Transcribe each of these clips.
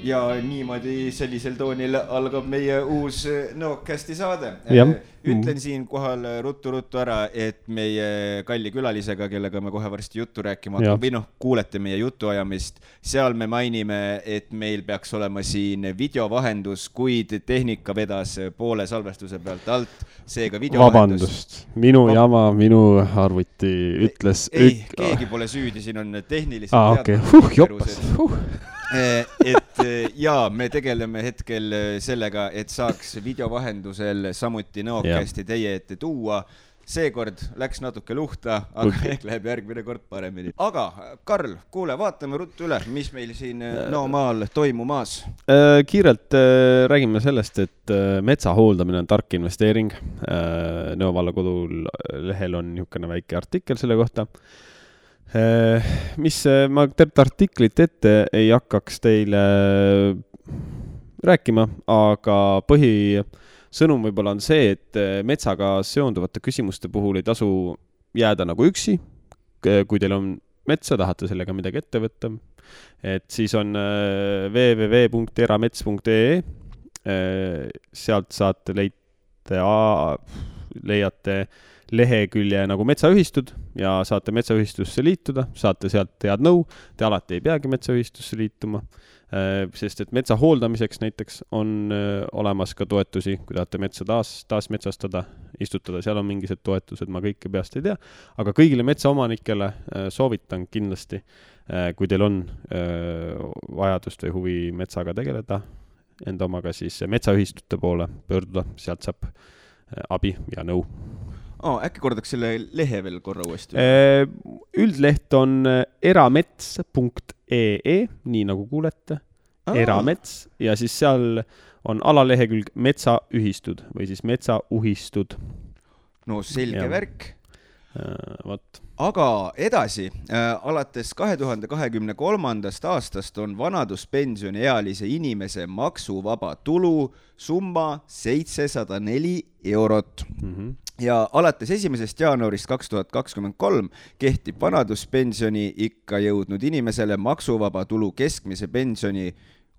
ja niimoodi sellisel toonil algab meie uus Nookcasti saade. Ütlen siin kohal ruttu ära, et meie kalli külalisega, kellega me kohe varsti juttu rääkima või kuulete meie jutuajamist, seal me mainime, et meil peaks olema siin videovahendus, kuid tehnika vedas poole salvestuse pealt alt, seega videovahendus. Vabandust, minu jama, minu arvuti ütles... Keegi pole süüdi, siin on tehniliselt et me tegeleme hetkel sellega, et saaks videovahendusel samuti Nookcasti teie ette tuua. Seekord läks natuke luhta, aga ehk läheb järgmine kord paremini. Aga Karl, kuule, vaatame ruttu üle, mis meil siin maal toimumas. Kiirelt räägime sellest, et metsa hooldamine on tark investeering. Nõo valla kodul lehel on niisugune väike artikkel selle kohta. Mis ma tervet artiklit ette ei hakkaks teile rääkima, aga põhisõnum võib-olla on see, et metsaga seonduvate küsimuste puhul ei tasu jääda nagu üksi. Kui teil on metsa, tahate sellega midagi ette võtta, et siis on www.eramets.ee, sealt saate leiate lehekülje nagu metsaühistud ja saate metsaühistusse liituda, saate sealt head nõu, te alati ei peagi metsaühistusse liituma, sest et metsa hooldamiseks näiteks on olemas ka toetusi, kui tahate metsa taas metsastada, istutada, seal on mingised toetused, ma kõike peast ei tea, aga kõigile metsaomanikele soovitan kindlasti, kui teil on vajadust või huvi metsaga tegeleda, enda omaga siis metsaühistute poole pöörduda, sealt saab abi ja nõu. Äkki kordaks selle lehe veel korra uuesti? Üldleht on eramets.ee, nii nagu kuulete, eramets, ja siis seal on alalehekülg metsaühistud või siis metsauhistud. No selge värk. Võt. Aga edasi, alates 2023. aastast on vanaduspensioniealise inimese maksuvaba tulu summa 704 eurot. Ja alates 1. jaanuarist 2023 kehtib vanaduspensioni ikka jõudnud inimesele maksuvaba tulu keskmise pensioni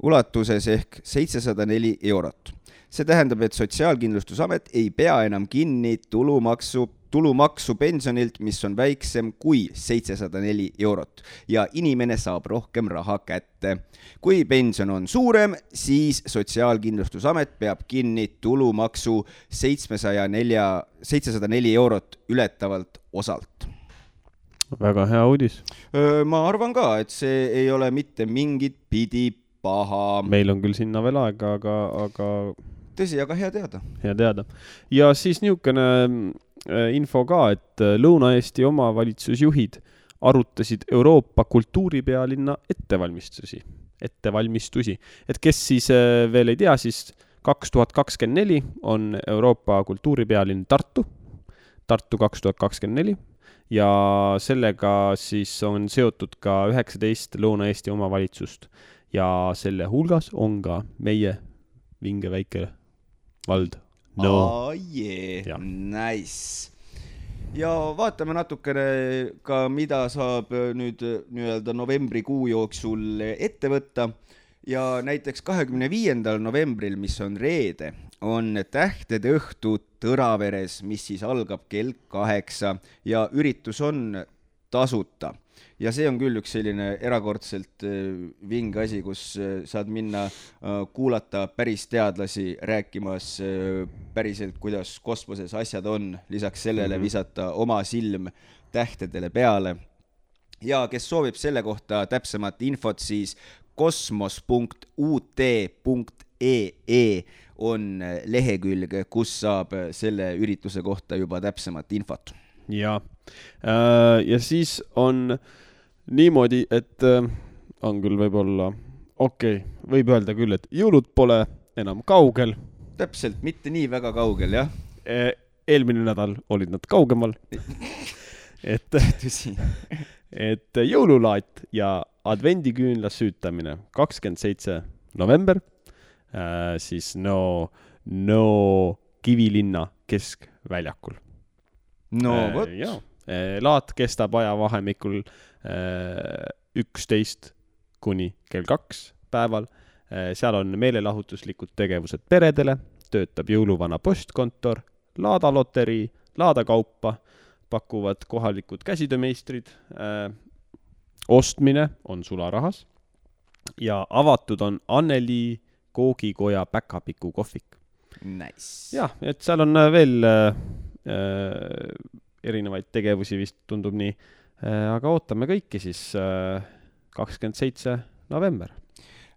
ulatuses ehk 704 eurot. See tähendab, et Sotsiaalkindlustusamet ei pea enam kinni tulumaksu pensionilt, mis on väiksem kui 704 eurot ja inimene saab rohkem raha kätte. Kui pension on suurem, siis Sotsiaalkindlustusamet peab kinni tulumaksu 704 eurot ületavalt osalt. Väga hea uudis. Ma arvan ka, et see ei ole mitte mingit pidi paha. Meil on küll sinna veel aega, aga... Tõsi, aga hea teada. Hea teada. Ja siis niisugune info ka, et Lõuna-Eesti omavalitsusjuhid arutasid Euroopa kultuuripealinna ettevalmistusi. Et kes siis veel ei tea, siis 2024 on Euroopa kultuuripealinn Tartu 2024 ja sellega siis on seotud ka 19 Lõuna-Eesti omavalitsust ja selle hulgas on ka meie vinge väike vald. Nice. Ja vaatame natukene ka, mida saab nüüd nii-öelda novembrikuu jooksul ette võtta. Ja näiteks 25. novembril, mis on reede, on tähtede õhtu Tõraveres, mis siis algab kell 8 ja üritus on tasuta. Ja see on küll üks selline erakordselt vinge asi, kus saad minna kuulata päris teadlasi rääkimas päriselt, kuidas kosmoses asjad on, lisaks sellele visata oma silm tähtedele peale. Ja kes soovib selle kohta täpsemat infot, siis kosmos.ut.ee on lehekülg, kus saab selle ürituse kohta juba täpsemat infot. Ja siis on niimoodi, et on küll võib-olla, võib öelda küll, et jõulud pole enam kaugel. Täpselt, mitte nii väga kaugel, jah. Eelmine nädal olid nad kaugemal. et jõululaat ja advendiküünla süütamine 27. november, siis Kivilinna keskväljakul. Võt. Laat kestab ajavahemikul 11 kuni kell 2 päeval. Seal on meelelahutuslikud tegevused peredele, töötab jõuluvana postkontor, laadaloterii, laadakaupa, pakuvad kohalikud käsitöömeistrid, ostmine on sularahas ja avatud on Anneli koogikoja päkapiku kohvik. Nice. Jah, et seal on veel erinevaid tegevusi vist tundub nii, aga ootame kõiki siis 27. november.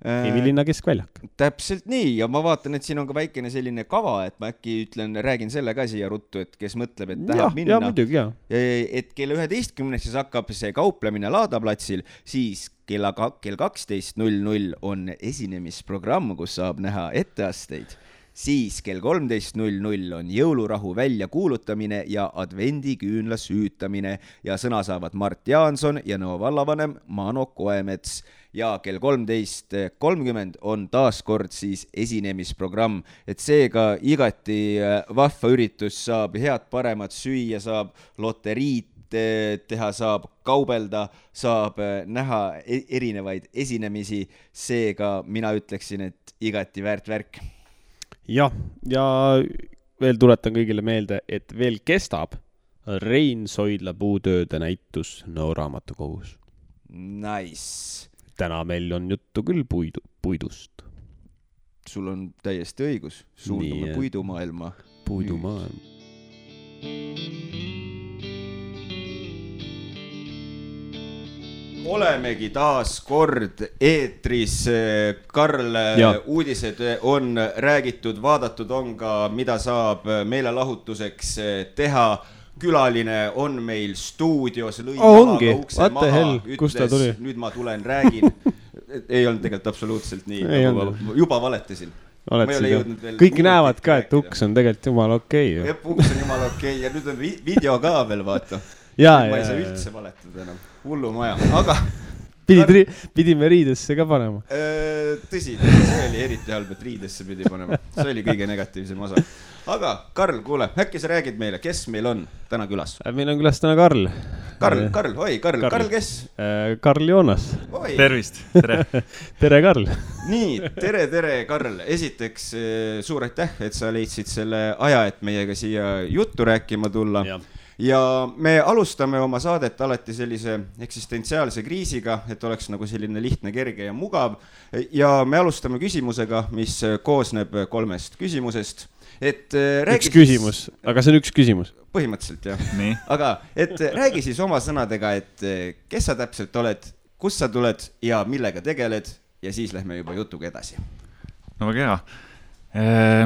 Kivilinna keskväljak. Täpselt nii ja ma vaatan, et siin on ka väikene selline kava, et ma äkki räägin selle ka siia ruttu, et kes mõtleb, et tahab minna. Ja, muidugi, jah. Et kell 11 siis hakkab see kauplemine Laadaplatsil, siis kell 12.00 on esinemisprogramm, kus saab näha etteasteid. Siis kell 13.00 on jõulurahu välja kuulutamine ja advendiküünla süütamine ja sõna saavad Mart Jaanson ja Nõo vallavanem Mano Koemets ja kell 13.30 on taaskord siis esinemisprogramm, et seega igati vahva üritus, saab head paremat süüa, saab loteriit teha, saab kaubelda, saab näha erinevaid esinemisi, seega mina ütleksin, et igati väärt värk. Ja veel tuletan kõigile meelde, et veel kestab Rein Soidla puutööde näitus Nõo raamatukogus. Nice. Täna meil on juttu küll puidust. Sul on täiesti õigus. Suundume puidumaailma. Puidumaailma. Olemegi taas kord eetris. Karl, uudised on räägitud, vaadatud on ka, mida saab meelelahutuseks teha. Külaline on meil stuudios, lõi ongi, ukse maha, hell, ütles, nüüd ma tulen, räägin. Ei olnud tegelikult absoluutselt nii, juba valetasin. Kõik näevad ka, et uks on tegelikult jumala okei. Uks on jumala okei ja nüüd on video ka veel, vaata. Ma ei saa üldse valetada enam. Hullu maja, aga... Pidime riidesse ka panema. Tõsi, see oli eriti halb, et riidesse pidi panema. See oli kõige negatiivsem osa. Aga Karl, kuule, äkki sa räägid meile, kes meil on täna külas? Meil on külas täna Karl. Karl, kes? Karl Joonas. Tervist, tere. Tere, Karl. Nii, tere, Karl. Esiteks suur aitäh, et sa leidsid selle aja, et meiega siia juttu rääkima tulla. Ja me alustame oma saadet alati sellise eksistentsiaalse kriisiga, et oleks nagu selline lihtne, kerge ja mugav. Ja me alustame küsimusega, mis koosneb 3 küsimusest. Üks küsimus, aga see on üks küsimus. Põhimõtteliselt, jah. Nii. Aga räägi siis oma sõnadega, et kes sa täpselt oled, kus sa tuled ja millega tegeled ja siis lähme juba jutuga edasi. No väga hea.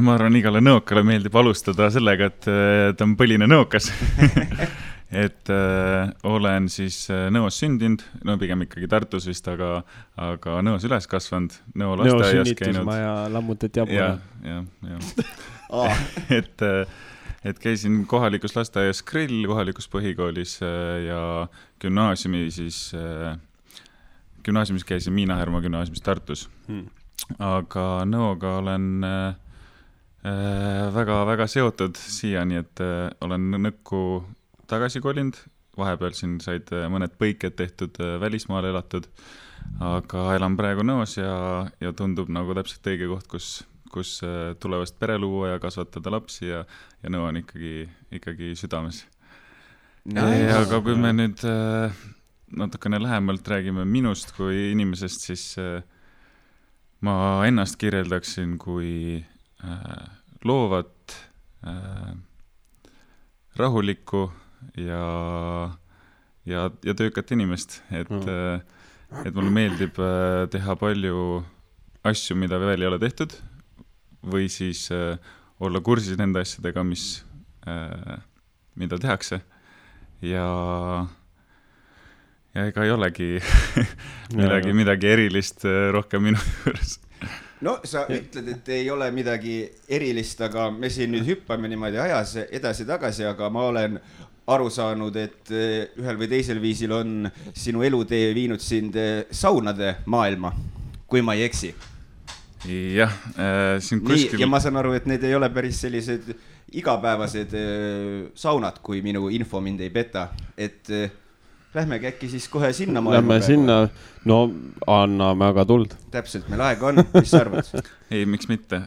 Ma arvan, igale nõokale meeldib alustada sellega, et ta on põline nõokas. Et olen siis Nõos sündinud, no pigem ikkagi Tartus vist, aga Nõos üles kasvanud, Nõo lasteaias käinud. Sünnitusmaja lammutati jabuna. Ja. Et käisin kohalikus lasteaias Grill, kohalikus põhikoolis ja gümnaasiumis käisin Miina Härma gümnaasiumis Tartus. Aga Nõoga olen väga seotud siiani, et olen Nõkku tagasi kolinud. Vahepeal siin said mõned põiked tehtud, välismaal elatud, aga elan praegu Nõos ja tundub nagu täpselt õige koht, kus tulevast pere luua ja kasvatada lapsi ja Nõo on ikkagi südames. Aga kui me nüüd natukene lähemalt räägime minust kui inimesest, siis ma ennast kirjeldaksin kui loovat, rahulikku ja töökat inimest, et mulle meeldib teha palju asju, mida veel ei ole tehtud või siis olla kursis nende asjadega, mida tehakse ja ega ei olegi midagi erilist rohkem minu juures. No sa ütled, et ei ole midagi erilist, aga me siin nüüd hüppame niimoodi ajas edasi-tagasi, aga ma olen aru saanud, et ühel või teisel viisil on sinu elutee viinud sind saunade maailma, kui ma ei eksi. Jah, siin kuskil... Ja ma saan aru, et need ei ole päris sellised igapäevased saunad, kui minu info mind ei peta, et Lähmegi äkki siis kohe sinna Lähme sinna, no anname aga tuld. Täpselt, meil aega on, mis sa arvad? Ei, miks mitte,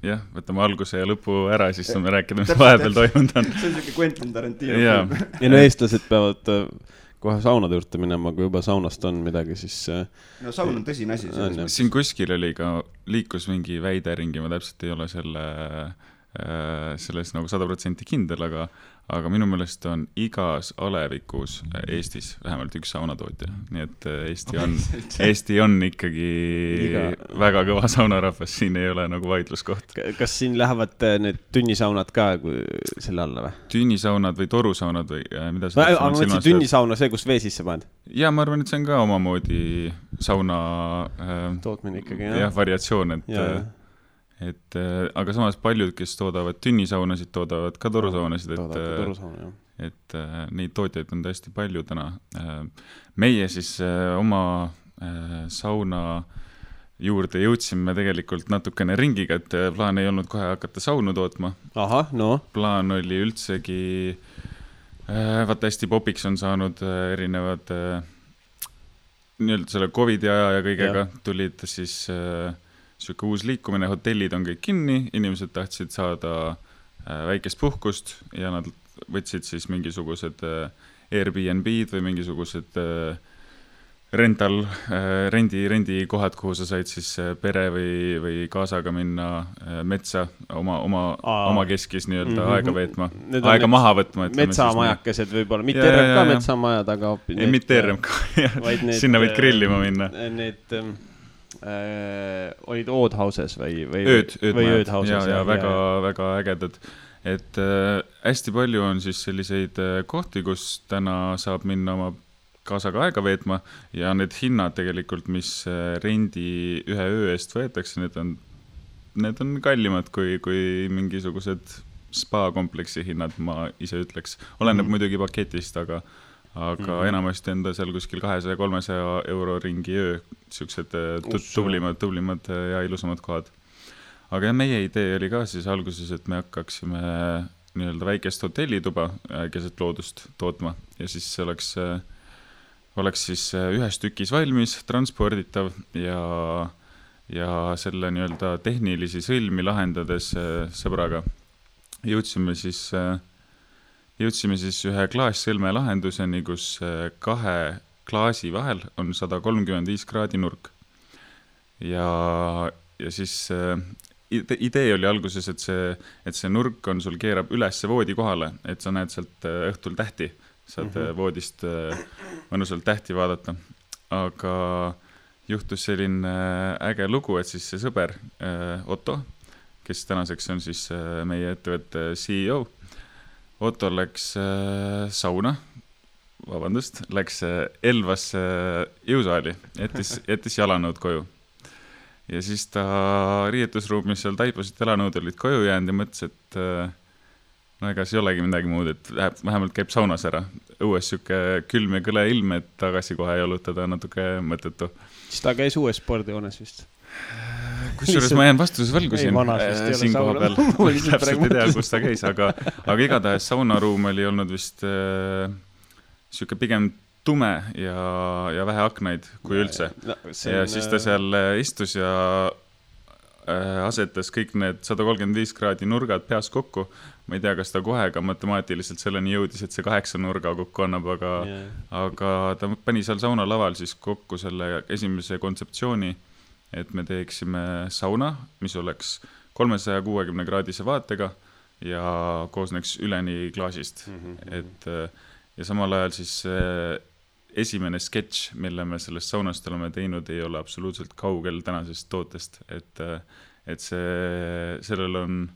jah, võtame alguse ja lõpu ära, siis saame rääkida, mis vahepeal toimunud on. See on siuke Quentin Tarantino. Ja no eestlased peavad kohe saunade juurde minema, kui juba saunast on midagi, siis... No saun on tõsine asi. Siin kuskil oli ka liikus mingi väide ringi, ma täpselt ei ole selles nagu 100% kindel, aga minu meelest on igas alevikus Eestis vähemalt üks saunatootja, nii et Eesti on ikkagi väga kõva saunarahvas, siin ei ole nagu vaidluskoht. Kas siin lähevad need tünnisaunad ka selle alla või? Tünnisaunad või torusaunad või mida sa aga ma mõtlesin tünnisauna see, kus vee sisse paned? Ja ma arvan, et see on ka omamoodi sauna tootmine ikkagi, jah, variatsioon, aga samas paljud, kes toodavad tünnisaunasid, toodavad ka torusaunasid, et neid tootjaid on tõesti palju täna. Meie siis oma sauna juurde jõudsime tegelikult natukene ringiga, et plaan ei olnud kohe hakata saunu tootma. Aha, no. Plaan oli üldsegi, vaata hästi popiks on saanud erinevad nii-öelda selle COVID-i aja ja kõigega tulid siis... Siuke uus liikumine, hotellid on kõik kinni, inimesed tahtsid saada väikest puhkust ja nad võtsid siis mingisugused Airbnb-d või mingisugused rendi kohad, kuhu sa said siis pere või kaasaga minna metsa oma keskis nii-öelda aega veetma, aega maha võtma. Metsamajakesed võib-olla, mitte RMK metsamajad, aga... Ei, mitte RMK, sinna võid grillima minna. Need... olid Oud Houses või Ööd Houses ja väga ägedad, et hästi palju on siis selliseid kohti, kus täna saab minna oma kaasaga aega veetma ja need hinnad tegelikult, mis rendi ühe öö eest võetakse, need on kallimad kui mingisugused spa-kompleksi hinnad, ma ise ütleks. Oleneb muidugi paketist, aga enamasti enda seal kuskil 200-300 euro ringi öö, siuksed tublimad ja ilusamad kohad. Aga meie idee oli ka siis alguses, et me hakkaksime nii-öelda väikest hotellituba keset loodust tootma ja siis see oleks siis ühes tükis valmis, transporditav ja selle nii-öelda tehnilisi sõlmi lahendades sõbraga jõudsime siis ühe klaassõlme lahenduseni, kus kahe klaasi vahel on 135 kraadi nurk. Ja siis idee oli alguses, et see nurk on sul keerab üles voodi kohale, et sa näed sealt õhtul tähti, saad voodist mõnusalt tähti vaadata. Aga juhtus selline äge lugu, et siis see sõber Otto, kes tänaseks on siis meie ettevõtte CEO, Otto läks läks Elvasse jõusaali, jättis jalanõud koju. Ja siis ta riietusruumis seal taipasid jalanõud olid koju jäänud ja mõtles, et no ega see ei olegi midagi muud, et vähemalt käib saunas ära. Õues siuke külm ja kõle ilm, et tagasi kohe jalutada natuke mõttetu. Siis ta käis uues spordijoones vist? Kusjuures ma jään vastuses võlgusin siin koha peal. Täpselt ei tea, kus ta käis, aga igatahes saunaruum oli olnud vist siuke pigem tume ja vähe aknaid kui üldse. Ja siis ta seal istus ja asetas kõik need 135 kraadi nurgad peas kokku. Ma ei tea, kas ta kohe ka matemaatiliselt selleni jõudis, et see 8 nurga kokku annab, aga ta pani seal saunalaval siis kokku selle esimese kontseptsiooni, et me teeksime sauna, mis oleks 360 kraadise vaatega ja koosneks üleni klaasist. Ja samal ajal siis esimene sketš, mille me sellest saunast oleme teinud, ei ole absoluutselt kaugel tänasest tootest, et sellel on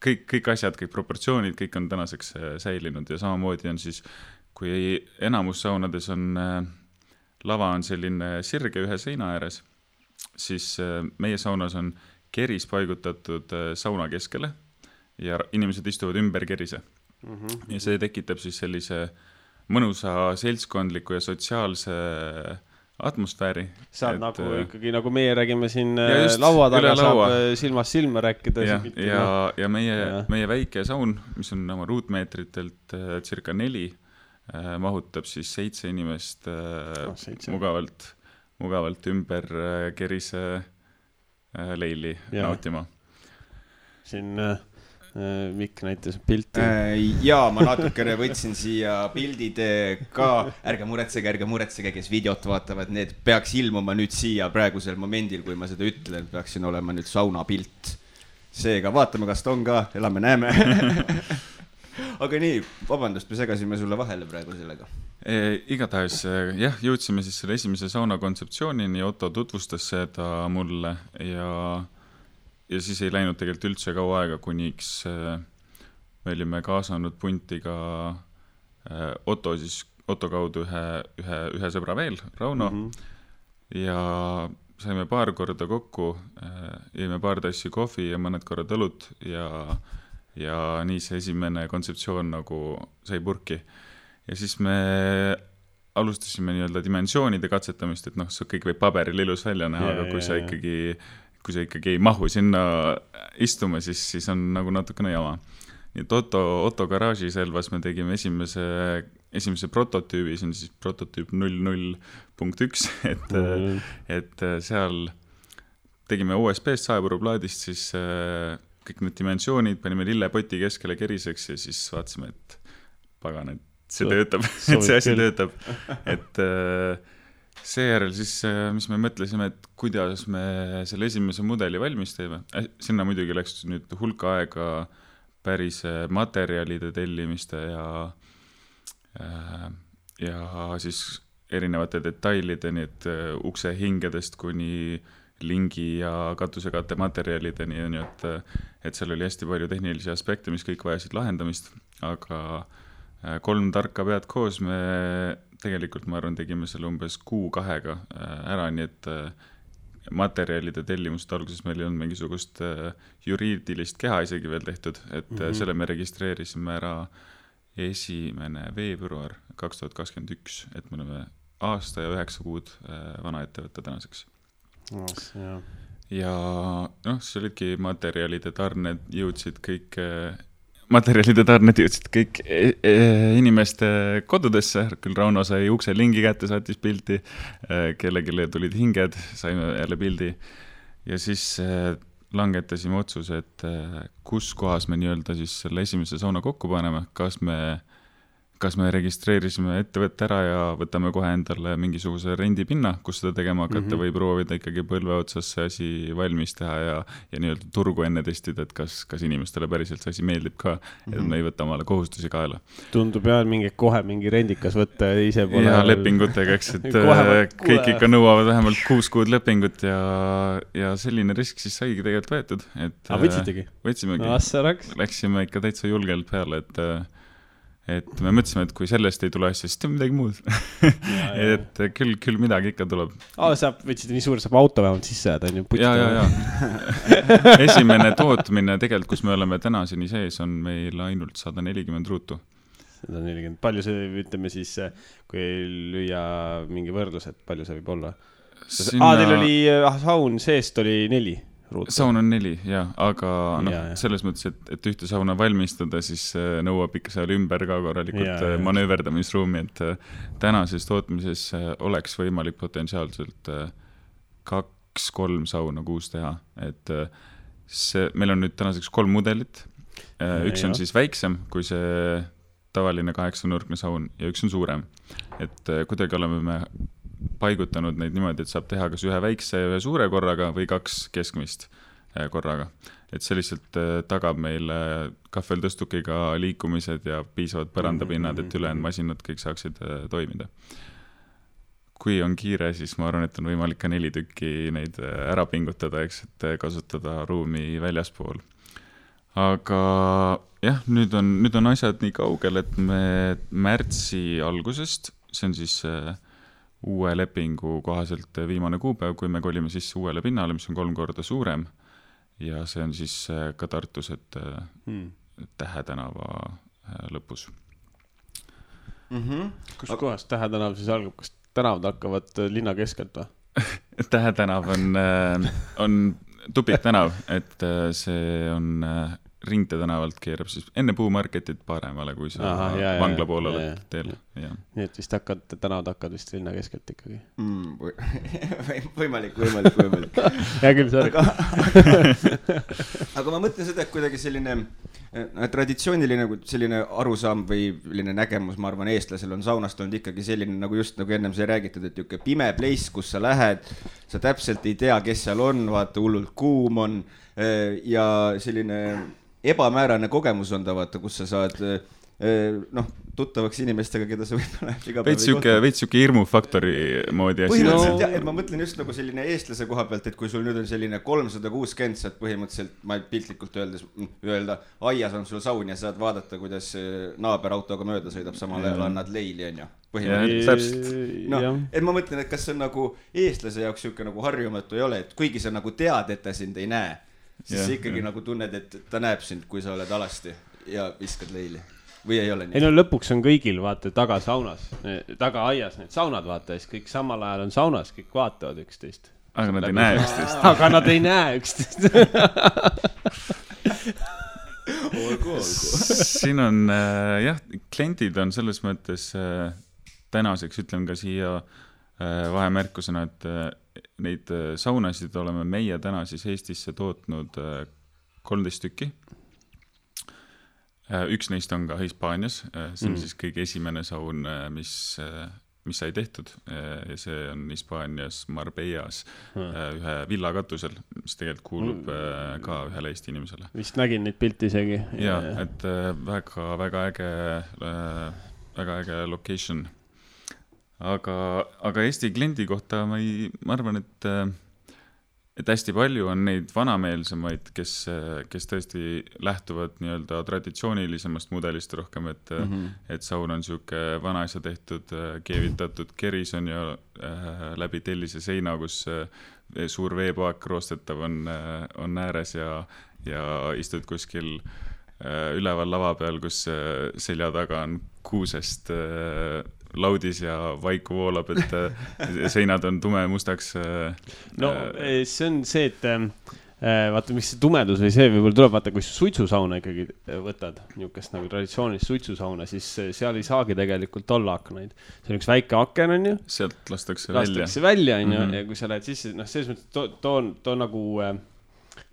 kõik asjad, kõik proportsioonid, kõik on tänaseks säilinud ja samamoodi on siis, kui enamus saunades on lava on selline sirge ühe seina ääres, siis meie saunas on keris paigutatud sauna keskele ja inimesed istuvad ümber kerise. Ja see tekitab siis sellise mõnusa seltskondliku ja sotsiaalse atmosfääri. Saad nagu ikkagi, nagu meie räägime siin laua taga, saab silmast silma rääkida. Ja meie väike saun, mis on oma ruutmeetritelt circa 4, mahutab siis 7 inimest mugavalt ümber kerise leili nautima. Siin Mikk näitas pilti. Jaa, ma natukene võtsin siia pildid ka. Ärge muretsege, kes videot vaatavad, need peaks ilmuma nüüd siia praegusel momendil, kui ma seda ütlen, peaksin olema nüüd sauna pilt. Seega vaatame, kas ta on ka, elame, näeme. Aga nii, vabandust, me segasime sulle vahele praegu sellega. Igatahes, jah, jõudsime siis selle esimese sauna kontseptsioonini, Otto tutvustas seda mulle ja siis ei läinud tegelikult üldse kaua aega, kuniks me olime kaasanud punti ka Otto kaudu ühe sõbra veel, Rauno, ja saime paar korda kokku, jõime paar tassi kohvi ja mõned korrad õlut ja nii see esimene kontseptsioon nagu sai purki. Ja siis me alustasime nii-öelda dimensioonide katsetamist, et see kõik võib paberil ilus välja näha, aga kui sa ikkagi ei mahu sinna istuma, siis on nagu natukene jama. Nii et Otto garaaži selvas me tegime esimese prototüübi, see on siis prototüüp 00.1, et seal tegime USB-st saepuruplaadist siis kõik need dimensioonid, panime lillepoti keskele keriseks ja siis vaatasime, et pagan, et see töötab, et see asi töötab. Et seejärel siis, mis me mõtlesime, et kuidas me selle esimese mudeli valmis teeme. Sinna muidugi läks nüüd hulka aega päris materjalide tellimiste ja siis erinevate detailideni, et ukse hingedest kuni lingi ja katusekatte materjalideni, et seal oli hästi palju tehnilisi aspekte, mis kõik vajasid lahendamist, aga 3 tarka pead koos me tegelikult, ma arvan, tegime selle umbes 2 ära, nii et materjalide tellimust alguses meil ei olnud mingisugust juriidilist keha isegi veel tehtud, et selle me registreerisime ära 1. veebruar 2021, et me oleme aasta ja 9 kuud vana ettevõtte tänaseks. Ja see olidki materjalide tarned jõudsid kõik inimeste kodudesse, küll Rauno sai ukse lingi kätte, saatis pildi, kellegile tulid hinged, saime jälle pildi ja siis langetasime otsuse, et kus kohas me nii-öelda siis selle esimese sauna kokku paneme, kas me registreerisime ettevõtte ära ja võtame kohe endale mingisuguse rendipinna, kus seda tegema hakata või proovida ikkagi põlve otsas see asi valmis teha ja nii-öelda turgu enne testida, et kas inimestele päriselt see asi meeldib ka, et me ei võta omale kohustusi kaela. Tundub kohe mingi rendikas võtta ise pole... Ja lepingutega, eks, et kõik ikka nõuavad vähemalt 6 kuud lepingut ja selline risk siis saigi tegelikult võetud. Võtsitegi? Võtsimegi. Läksime ikka täitsa julgelt peale, et me mõtlesime, et kui sellest ei tule asja, siis teeme midagi muud. Et küll midagi ikka tuleb. Võtsite nii suur, saab auto vähemalt sisse jääda. Ja. Esimene tootmine tegelikult, kus me oleme tänaseni sees, on meil ainult 140 ruutu. 140. Palju see, ütleme siis, kui lüüa mingi võrdlus, et palju see võib olla? Teil oli saun seest oli 4 ruutu. Saun on 4, jah, aga selles mõttes, et ühte sauna valmistada, siis nõuab ikka seal ümber ka korralikult manööverdamisruumi, et tänases tootmises oleks võimalik potentsiaalselt 2-3 sauna kuus teha, et meil on nüüd tänaseks 3 mudelit, üks on siis väiksem kui see tavaline 8-nurkne saun ja üks on suurem, et kuidagi oleme me paigutanud neid niimoodi, et saab teha kas ühe väikse ja ühe suure korraga või 2 keskmist korraga. Et see lihtsalt tagab meile kahveltõstukiga liikumised ja piisavad põrandapinnad, et ülejäänud masinad kõik saaksid toimida. Kui on kiire, siis ma arvan, et on võimalik ka 4 tükki neid ära pingutada, eks, et kasutada ruumi väljaspool. Aga jah, nüüd on asjad nii kaugel, et me märtsi algusest, see on siis uue lepingu kohaselt viimane kuupäev, kui me kolime sisse uuele pinnale, mis on 3 korda suurem ja see on siis ka Tartus, et Tähe tänava lõpus. Kus kohas Tähe tänav siis algab? Kas tänavad hakkavad linna keskelt või? Tähe tänav on tupik tänav, et see on Ringte tänavalt keerab siis enne puumarketit paremale, kui sa vangla poole oled teel. Nii et vist tänavad hakkad vist linna keskelt ikkagi. Võimalik. Hea küll, sorry. Aga ma mõtlen seda, et kuidagi selline traditsiooniline selline arusaam või selline nägemus, ma arvan, eestlasel on saunast olnud ikkagi selline, nagu just nagu ennem sai räägitud, et niisugune pime place, kus sa lähed, sa täpselt ei tea, kes seal on, vaata, hullult kuum on ja selline ebamäärane kogemus on ta, vaata, kus sa saad tuttavaks inimestega, keda sa võib-olla iga päev veits siuke hirmufaktori moodi asi. Põhimõtteliselt jah, et ma mõtlen just nagu selline eestlase koha pealt, et kui sul nüüd on selline 360, saad põhimõtteliselt, ma piltlikult öelda, aias on sul saun ja saad vaadata, kuidas naaber autoga mööda sõidab, samal ajal annad leili, on ju. Et ma mõtlen, et kas see on nagu eestlase jaoks siuke nagu harjumatu ei ole, et kuigi sa nagu tead, et ta sind ei näe, siis sa ikkagi nagu tunned, et ta näeb sind, kui sa oled alasti ja viskad leili. Või ei ole nii? Ei no lõpuks on kõigil, vaata, taga saunas, taga aias need saunad, vaata, siis kõik samal ajal on saunas, kõik vaatavad üksteist. Aga nad ei näe üksteist. Aga nad ei näe üksteist. Siin on, jah, kliendid on selles mõttes tänaseks, ütlen ka siia vahemärkusena, et neid saunasid oleme meie täna siis Eestisse tootnud 13 tükki. Üks neist on ka Hispaanias, see on siis kõige esimene saun, mis sai tehtud ja see on Hispaanias Marbellas ühe villa katusel, mis tegelikult kuulub ka ühele Eesti inimesele. Vist nägin neid pilti isegi. Ja, et väga äge location. Aga Eesti kliendi kohta ma arvan, et hästi palju on neid vanameelsemaid, kes tõesti lähtuvad nii-öelda traditsioonilisemast mudelist rohkem, et saun on siuke vanaisa tehtud, keevitatud keris on ju läbi tellise seina, kus suur veepaak roostetav on ääres ja istud kuskil üleval lava peal, kus selja taga on kuusest laudis ja vaiku voolab, et seinad on tume mustaks. No see on see, et vaata, miks see tumedus või see võib-olla tuleb, vaata, kui suitsusauna ikkagi võtad, niisugust nagu traditsioonilist suitsusauna, siis seal ei saagi tegelikult olla aknaid. See on üks väike aken, on ju. Sealt lastakse välja, on ju, ja kui sa lähed sisse, selles mõttes too nagu,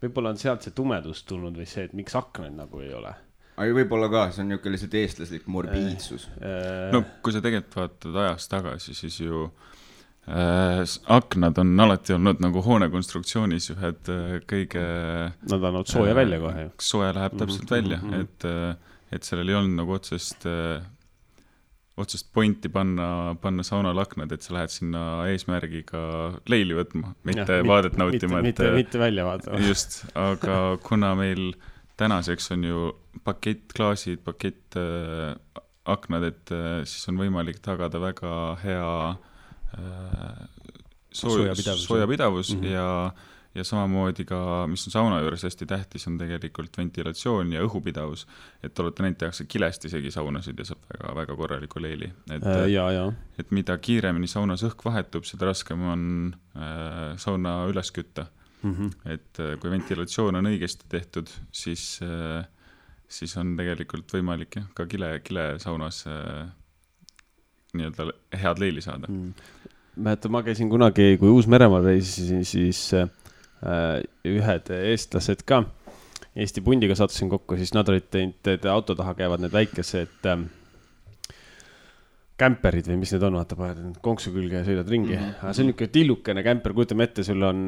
võib-olla on sealt see tumedus tulnud või see, et miks aknaid nagu ei ole. Aga võib-olla ka, see on niisugune lihtsalt eestlaslik morbiidsus. No kui sa tegelikult vaatad ajas tagasi, siis ju aknad on alati olnud nagu hoonekonstruktsioonis ühed kõige... Nad on olnud sooja välja kohe. Sooja läheb täpselt välja, et sellel ei olnud nagu otsest pointi panna saunal aknad, et sa lähed sinna eesmärgiga leili võtma, mitte vaadet nautima. Mitte välja vaatama. Just, aga kuna meil tänaseks on ju pakettklaasid, aknad, et siis on võimalik tagada väga hea soojapidavus ja samamoodi ka, mis on sauna juures hästi tähtis, on tegelikult ventilatsioon ja õhupidavus, et olete neid tehakse kilest isegi saunasid ja saab väga korraliku leili. Et mida kiiremini saunas õhk vahetub, seda raskem on sauna üles kütta. Et kui ventilatsioon on õigesti tehtud, siis on tegelikult võimalik ka kile saunas nii-öelda head leili saada. Ma käisin kunagi, kui Uus-Meremaal reisisin, siis ühed eestlased ka Eesti pundiga sattusin kokku, siis nad olid teinud, auto taha käivad need väikesed kämperid või mis need on, vaata paned konksu külge ja sõidad ringi. See on niisugune tillukene kämper, kujutame ette, sul on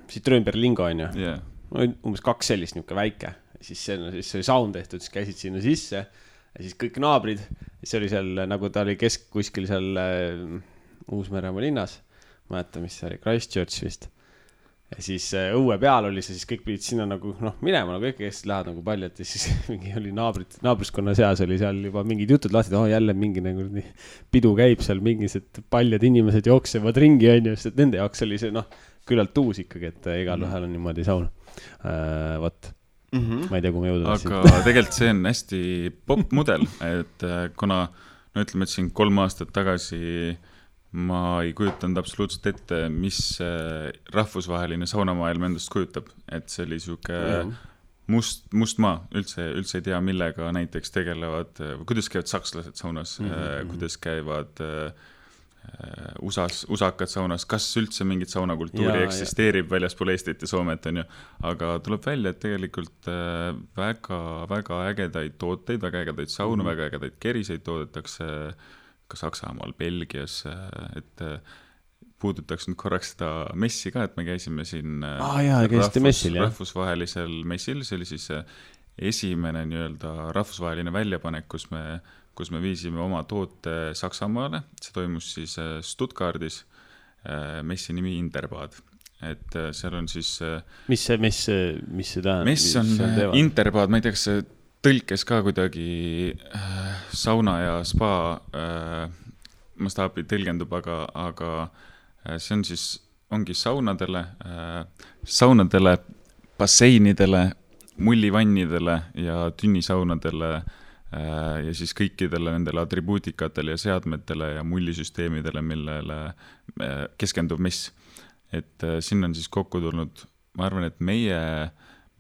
Citroen-Berlingo on ju, umbes 2 sellist niisugune väike, siis see oli saun tehtud, siis käisid sinna sisse ja siis kõik naabrid, siis oli seal, nagu ta oli kuskil seal Uus-Meremaa linnas, ma mäletan, mis see oli, Christchurch vist. Ja siis õue peal oli see, siis kõik pidid sinna nagu minema, nagu kõik lähevad nagu paljad ja siis mingi oli naabriskonna seas oli seal juba mingid jutud lahti, et jälle mingi nagu pidu käib seal, mingised paljad inimesed jooksevad ringi, on ju, sest nende jaoks oli see küllalt uus ikkagi, et igal ühel on niimoodi saun. Võt. Ma ei tea, kui ma jõuda tahtsin. Aga tegelikult see on hästi popp mudel, et kuna, ütleme, et siin 3 aastat tagasi ma ei kujutanud absoluutselt ette, mis rahvusvaheline saunamaailm endast kujutab, et see oli siuke mustmaa, üldse ei tea, millega näiteks tegelevad, kuidas käivad sakslased saunas, kuidas käivad usakad saunas, kas üldse mingit saunakultuuri eksisteerib väljaspool Eestit ja Soomet, on ju, aga tuleb välja, et tegelikult väga ägedaid tooteid, väga ägedaid saunu, väga ägedaid keriseid toodetakse ka Saksamaal, Belgias, et puudutaks nüüd korraks seda messi ka, et me käisime siin rahvusvahelisel messil, see oli siis esimene nii-öelda rahvusvaheline väljapanek, kus me viisime oma toote Saksamaale, see toimus siis Stuttgardis, messi nimi Interbad, et seal on siis mis see tähendab? Mess on Interbad, ma ei tea, kas see tõlkes ka kuidagi sauna ja spa mastaabi tõlgendub, aga see on siis, ongi saunadele, basseinidele, mullivannidele ja tünnisaunadele ja siis kõikidele nendele atribuutikatele ja seadmetele ja mullisüsteemidele, millele keskendub mess. Et siin on siis kokku tulnud, ma arvan, et meie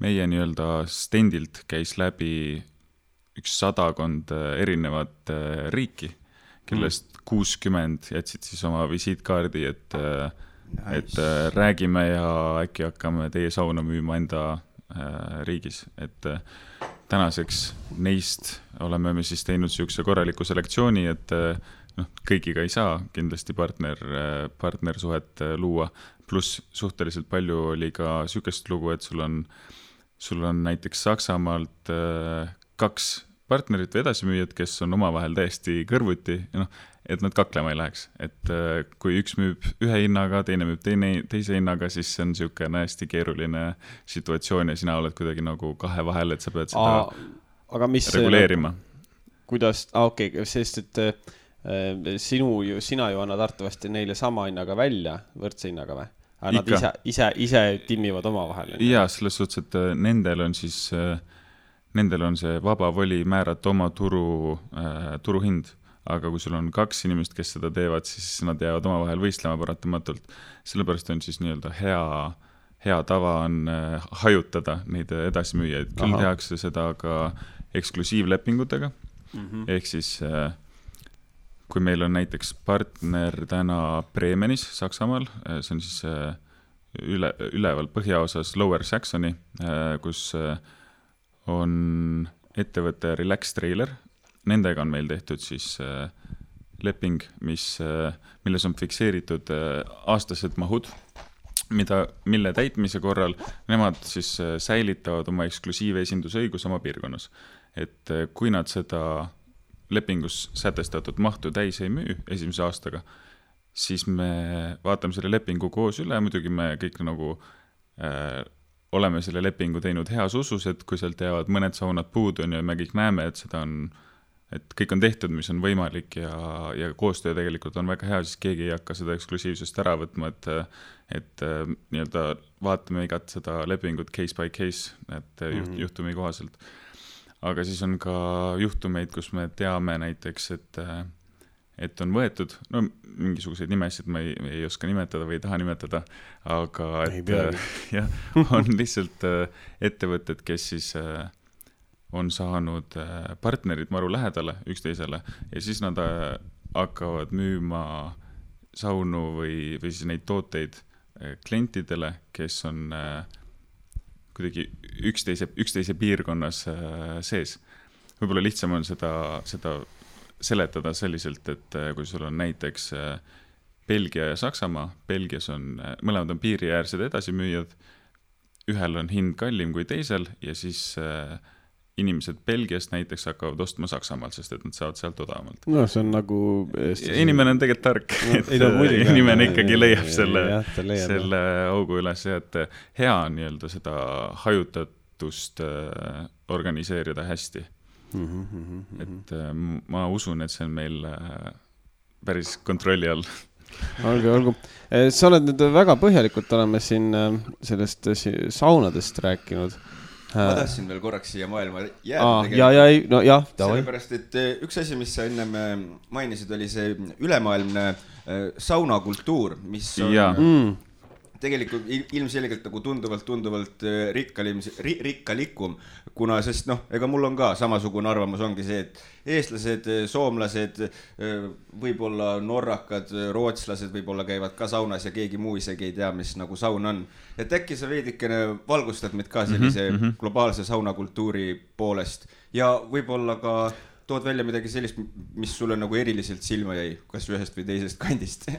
nii-öelda stendilt käis läbi 100 erinevat riiki, kellest 60 jätsid siis oma visiitkaardi, et räägime ja äkki hakkame teie sauna müüma enda riigis. Et tänaseks neist oleme me siis teinud siukse korraliku selektsiooni, et kõigiga ei saa kindlasti partnersuhet luua, pluss suhteliselt palju oli ka siukest lugu, et sul on näiteks Saksamaalt 2 partnerit või edasimüüjad, kes on omavahel täiesti kõrvuti, et nad kaklema ei läheks. Et kui üks müüb ühe hinnaga, teine müüb teise hinnaga, siis see on siukene hästi keeruline situatsioon ja sina oled kuidagi nagu kahe vahel, et sa pead seda reguleerima. Kuidas, sest et sina ju annad arvatavasti neile sama hinnaga välja, võrdse hinnaga või? Nad ise timmivad omavahel. Jaa, selles suhtes, et nendel on see vaba voli määrata oma turuhind, aga kui sul on 2 inimest, kes seda teevad, siis nad jäävad omavahel võistlema paratamatult. Sellepärast on siis nii-öelda hea tava on hajutada neid edasimüüjaid. Küll tehakse seda ka eksklusiivlepingutega. Ehk siis, kui meil on näiteks partner täna Bremenis, Saksamaal, see on siis üleval põhjaosas Lower Saxony, kus on ettevõtte Relax Trailer. Nendega on meil tehtud siis leping, milles on fikseeritud aastased mahud, mille täitmise korral nemad siis säilitavad oma eksklusiivesindusõigus oma piirkonnas. Et kui nad seda lepingus sätestatud mahtu täis ei müü esimese aastaga, siis me vaatame selle lepingu koos üle, muidugi me kõik nagu oleme selle lepingu teinud heas usus, et kui sealt jäävad mõned saunad puudu ja me kõik näeme, et kõik on tehtud, mis on võimalik ja koostöö tegelikult on väga hea, siis keegi ei hakka seda eksklusiivsust ära võtma, et nii-öelda vaatame igat seda lepingut case by case, et juhtumi kohaselt. Aga siis on ka juhtumeid, kus me teame näiteks, et on võetud, mingisuguseid nimesid ma ei oska nimetada või ei taha nimetada, aga on lihtsalt ettevõtted, kes siis on saanud partnerid maru lähedale üksteisele ja siis nad hakkavad müüma saunu või siis neid tooteid klientidele, kes on kuidagi üksteise piirkonnas sees. Võib-olla lihtsam on seda seletada selliselt, et kui sul on näiteks Belgia ja Saksamaa, Belgias mõlemad on piiriäärsed edasimüüjad, ühel on hind kallim kui teisel ja siis inimesed Belgiast näiteks hakkavad ostma Saksamaalt, sest et nad saavad sealt odavamalt. No see on nagu inimene on tegelikult tark, et inimene ikkagi leiab selle augu üles ja et hea on nii-öelda seda hajutatust organiseerida hästi. Et ma usun, et see on meil päris kontrolli all. Olgu. Sa oled nüüd väga põhjalikult oleme siin sellest saunadest rääkinud. Ma tahtsin veel korraks siia maailma jääda. Sellepärast, et üks asi, mis sa enne mainisid, oli see ülemaailmne saunakultuur, mis on tegelikult ilmselgelt nagu tunduvalt rikkalikum, kuna sest ega mul on ka samasugune arvamus, ongi see, et eestlased, soomlased, võib-olla norrakad, rootslased võib-olla käivad ka saunas ja keegi muu isegi ei tea, mis nagu saun on. Et äkki sa veidikene valgustad meid ka sellise globaalse saunakultuuri poolest ja võib-olla ka tood välja midagi sellist, mis sulle nagu eriliselt silma jäi, kas ühest või teisest kandist?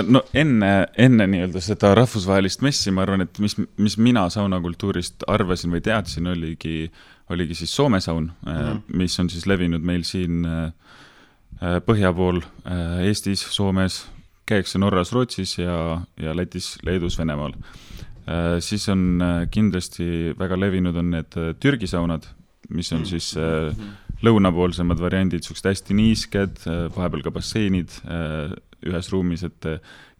No enne nii-öelda seda rahvusvahelist messi, ma arvan, et mis mina saunakultuurist arvasin või teadsin, oligi siis Soome saun, mis on siis levinud meil siin põhja pool Eestis, Soomes, käiakse Norras, Rootsis ja Lätis, Leedus, Venemaal. Siis on kindlasti väga levinud on need Türgi saunad, mis on siis lõunapoolsemad variandid, suksed hästi niisked, vahepeal ka basseinid ühes ruumis, et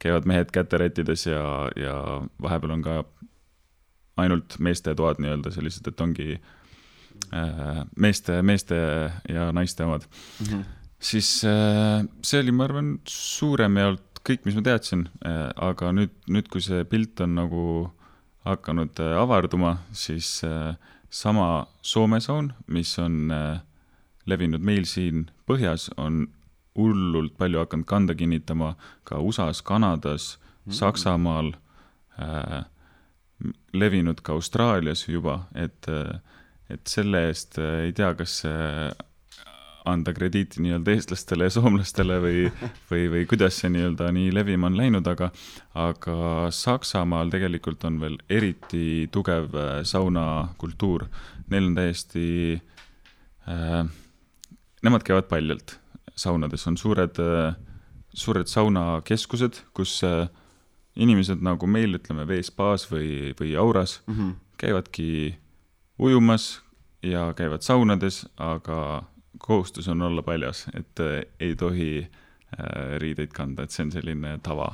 käivad mehed käterättides ja vahepeal on ka ainult meeste toad nii-öelda sellised, et ongi meeste ja naiste omad. Siis see oli, ma arvan, suurem jaolt kõik, mis ma teadsin, aga nüüd kui see pilt on nagu hakanud avarduma, siis sama Soome saun, mis on levinud meil siin põhjas, on hullult palju hakanud kanda kinnitama ka USA-s, Kanadas, Saksamaal, levinud ka Austraalias juba, et selle eest ei tea, kas anda krediiti nii-öelda eestlastele ja soomlastele või kuidas see nii-öelda nii levima on läinud, aga Saksamaal tegelikult on veel eriti tugev saunakultuur. Neil on täiesti, nemad käivad paljalt. Saunades on suured saunakeskused, kus inimesed nagu meil, ütleme, veespaas või auras käivadki ujumas ja käivad saunades, aga kohustus on olla paljas, et ei tohi riideid kanda, et see on selline tava.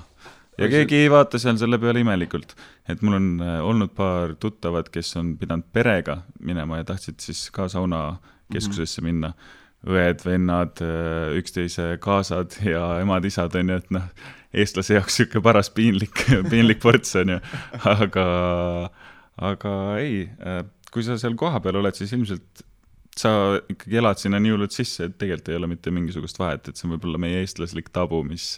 Ja keegi ei vaata seal selle peale imelikult. Et mul on olnud paar tuttavad, kes on pidanud perega minema ja tahtsid siis ka saunakeskusesse minna. Õed, vennad, üksteise kaasad ja emad-isad on ju, et eestlase jaoks siuke paras piinlik ports on ju, aga ei, kui sa seal koha peal oled, siis ilmselt sa ikkagi elad sinna nii hullult sisse, et tegelikult ei ole mitte mingisugust vahet, et see on võib-olla meie eestlaslik tabu, mis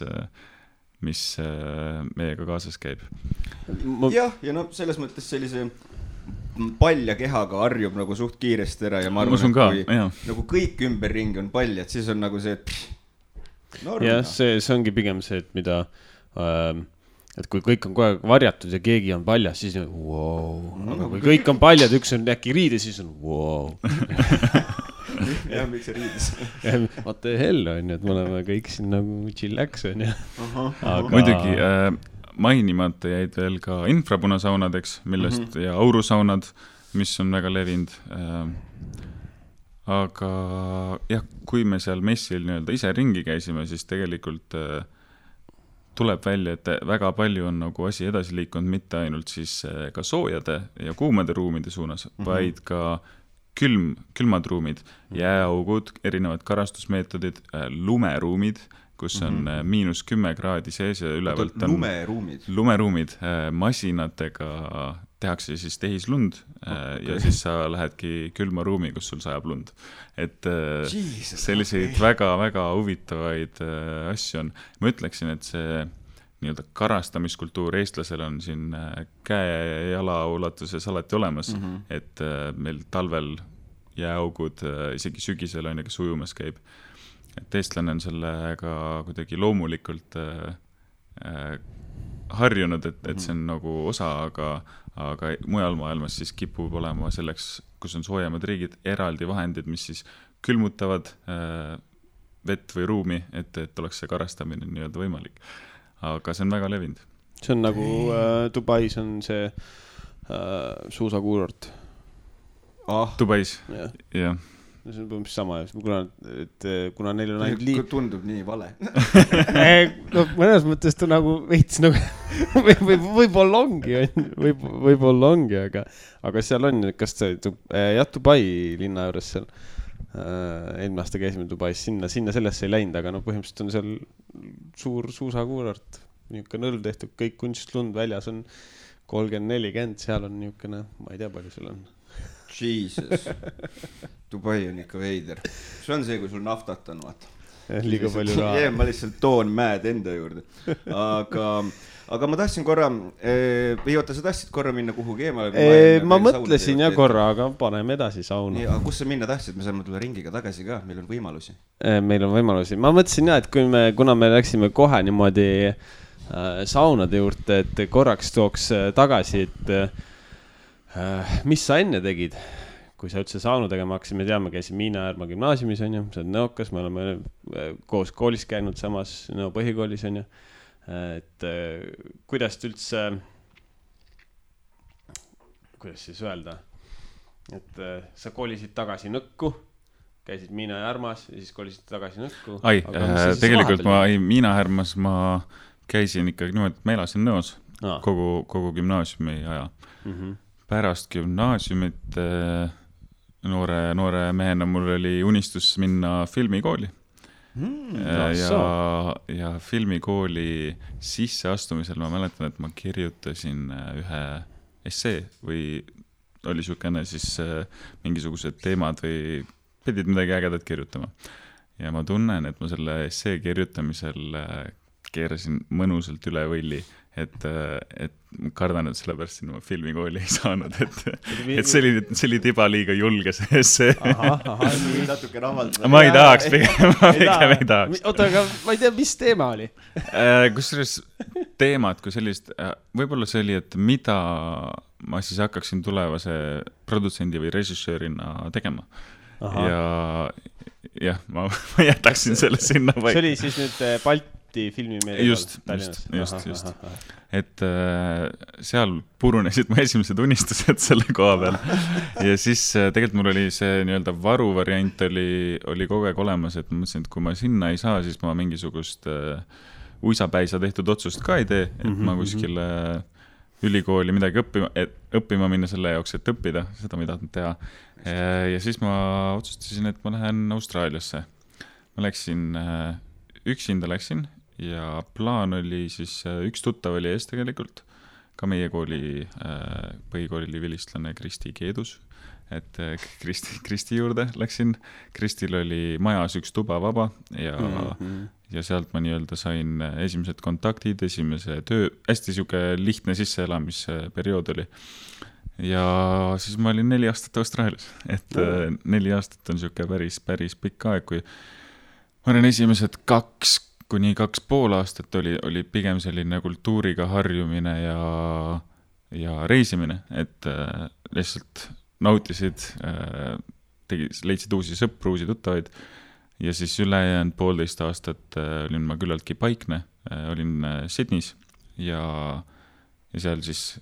meiega kaasas käib. Ja selles mõttes sellise palja kehaga harjub nagu suht kiiresti ära ja ma arvan, et kui nagu kõik ümberringi on paljad, siis on nagu see, et jah, see ongi pigem see, et mida et kui kõik on kogu aeg varjatud ja keegi on paljas, siis on wow. Aga kui kõik on paljad, üks on äkki riides, siis on wow. Jah, miks see riides? What the hell on ju, et me oleme kõik siin nagu chillax on ju. Muidugi mainimata jäid veel ka infrapunasaunadeks, millest ja aurusaunad, mis on väga levinud. Aga jah, kui me seal messil nii-öelda ise ringi käisime, siis tegelikult tuleb välja, et väga palju on nagu asi edasi liikunud mitte ainult siis ka soojade ja kuumade ruumide suunas, vaid ka külmad ruumid, jääaugud, erinevad karastusmeetodid, lumeruumid, kus on -10 kraadi sees ja ülevalt on lumeruumid, masinatega tehakse siis tehislund ja siis sa lähedki külma ruumi, kus sul sajab lund. Et selliseid väga-väga huvitavaid asju on. Ma ütleksin, et see nii-öelda karastamiskultuur eestlasel on siin käe ja jala ulatuses alati olemas, et meil talvel jääaugud, isegi sügisel on ja kes ujumas käib. Et eestlane on sellega kuidagi loomulikult harjunud, et see on nagu osa, aga mujal maailmas siis kipub olema selleks, kus on soojemad riigid, eraldi vahendid, mis siis külmutavad vett või ruumi, et oleks see karastamine nii-öelda võimalik. Aga see on väga levinud. See on nagu Dubais on see suusakuurort. Dubais, jah. See on mis sama, kuna neil on ainult tundub nii vale. No mõnes mõttes ta nagu veits nagu võib-olla ongi, aga seal on, kas see Dubai linna juures seal eelmine aasta käisime Dubais, sinna sellesse ei läinud, aga no põhimõtteliselt on seal suur suusakuurort. niisugune nõrv tehtud, kõik kunstlund väljas on 30-40, seal on niisugune, ma ei tea, palju sul on. Jesus. Dubai on ikka veider. See on see, kui sul naftat on, vaata. Liiga palju raha. Ma lihtsalt toon mäed enda juurde. Aga ma tahtsin korra, või oota, sa tahtsid korra minna kuhugi eemale? Ma mõtlesin ja korra, aga paneme edasi sauna. Aga kus sa minna tahtsid? Me saame tulla ringiga tagasi ka, meil on võimalusi. Meil on võimalusi. Ma mõtlesin jah, et kuna me läksime kohe niimoodi saunade juurde, et korraks tooks tagasi, et mis sa enne tegid, kui sa üldse saunu tegema hakkasid, me teame, käisid Miina Järma gümnaasiumis, on ju, sa oled Nõokas, me oleme koos koolis käinud samas Nõo põhikoolis, on ju, et kuidas üldse, kuidas siis öelda, et sa koolisid tagasi Nõkku, käisid Miina Järmas ja siis koolisid tagasi Nõkku. Tegelikult Miina Järmas ma käisin ikkagi niimoodi, et ma elasin Nõos kogu gümnaasiumi aja. Pärast gümnaasiumit noore mehena mul oli unistus minna filmikooli. Ja filmikooli sisseastumisel ma mäletan, et ma kirjutasin ühe essee või oli siukene siis mingisugused teemad või pidid midagi ägedat kirjutama. Ja ma tunnen, et ma selle essee kirjutamisel keerasin mõnusalt üle võlli, et kardan, et sellepärast sinna filmikooli ei saanud, et see oli tiba liiga julge see essee. Natuke rahvaldada. Ma ei tahaks, pigem ei tahaks. Oota, aga ma ei tea, mis teema oli? Kusjuures teemad kui sellist, võib-olla see oli, et mida ma siis hakkaksin tulevase produtsendi või režissöörina tegema. Ja ma jätaksin selle sinna paika. See oli siis nüüd Balti filmimeelega just. Et seal purunesid mu esimesed unistused selle koha peal. Ja siis tegelikult mul oli see nii-öelda varuvariant oli kogu aeg olemas, et ma mõtlesin, et kui ma sinna ei saa, siis ma mingisugust uisapäisa tehtud otsust ka ei tee, et ma kuskile ülikooli midagi õppima minna selle jaoks, et õppida, seda ma ei tahtnud teha. Ja siis ma otsustasin, et ma lähen Austraaliasse. Ma üksinda läksin ja plaan oli siis, üks tuttav oli ees tegelikult, ka meie kooli põhikooli vilistlane Kristi Keedus, et Kristi juurde läksin. Kristil oli majas üks tuba vaba ja sealt ma nii-öelda sain esimesed kontaktid, esimese töö, hästi siuke lihtne sisseelamisperiood oli. Ja siis ma olin 4 aastat Austraalias, et 4 aastat on siuke päris pikk aeg, kui ma olen esimesed 2–2,5 aastat oli pigem selline kultuuriga harjumine ja reisimine, et lihtsalt nautisid, leidsid uusi sõpru, uusi tuttavaid ja siis ülejäänud 1,5 aastat olin ma küllaltki paikne, olin Sydneys ja seal siis,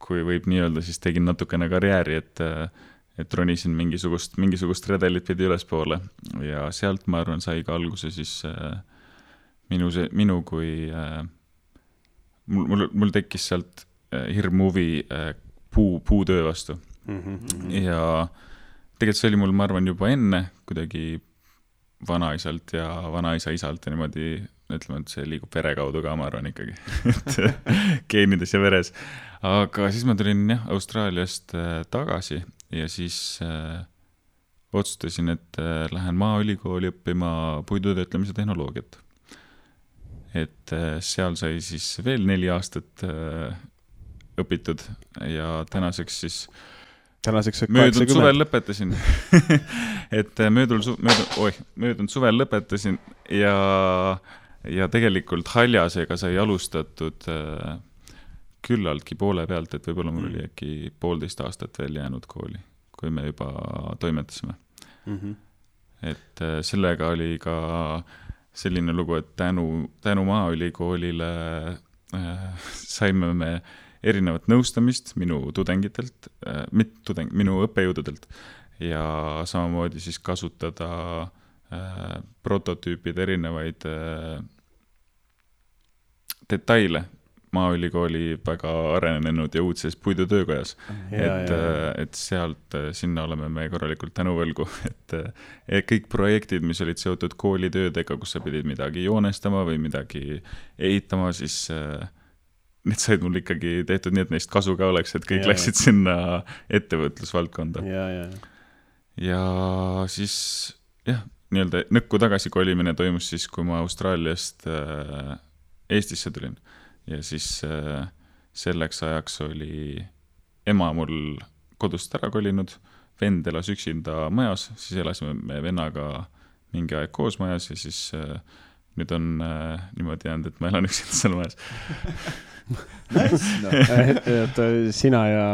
kui võib nii öelda, siis tegin natukene karjääri, et ronisin mingisugust redelit pidi ülespoole ja sealt ma arvan sai ka alguse siis minu kui mul tekkis sealt hirm huvi puutöö vastu ja tegelikult see oli mul, ma arvan, juba enne kuidagi vanaisalt ja vanaisa isalt ja niimoodi ütleme, et see liigub vere kaudu ka, ma arvan ikkagi geenides ja veres, aga siis ma tulin Austraaliast tagasi ja siis otsustasin, et lähen Maaülikooli õppima puidutöötlemise tehnoloogiat. Et seal sai siis veel 4 aastat õpitud ja tänaseks möödunud suvel lõpetasin. Et möödunud suvel lõpetasin ja tegelikult haljasega sai alustatud küllaltki poole pealt, et võib-olla mul oli äkki 1,5 aastat veel jäänud kooli, kui me juba toimetasime. Et sellega oli ka selline lugu, et tänu Maaülikoolile saime me erinevat nõustamist minu tudengitelt, minu õppejõududelt ja samamoodi siis kasutada prototüüpide erinevaid detaile Maaülikooli väga arenenud ja uudses puidutöökojas. Et sealt sinna oleme me korralikult tänuvõlgu, et kõik projektid, mis olid seotud koolitöödega, kus sa pidid midagi joonestama või midagi ehitama, siis need said mul ikkagi tehtud nii, et neist kasu ka oleks, et kõik läksid sinna ettevõtlusvaldkonda. Ja siis nii-öelda nõkku tagasi kolimine toimus siis, kui ma Austraaliast Eestisse tulin. Ja siis selleks ajaks oli ema mul kodust ära kolinud, vend elas üksinda majas, siis elasime me vennaga mingi aeg koos majas ja siis nüüd on niimoodi jäänud, et ma elan üksinda seal majas. Sina ja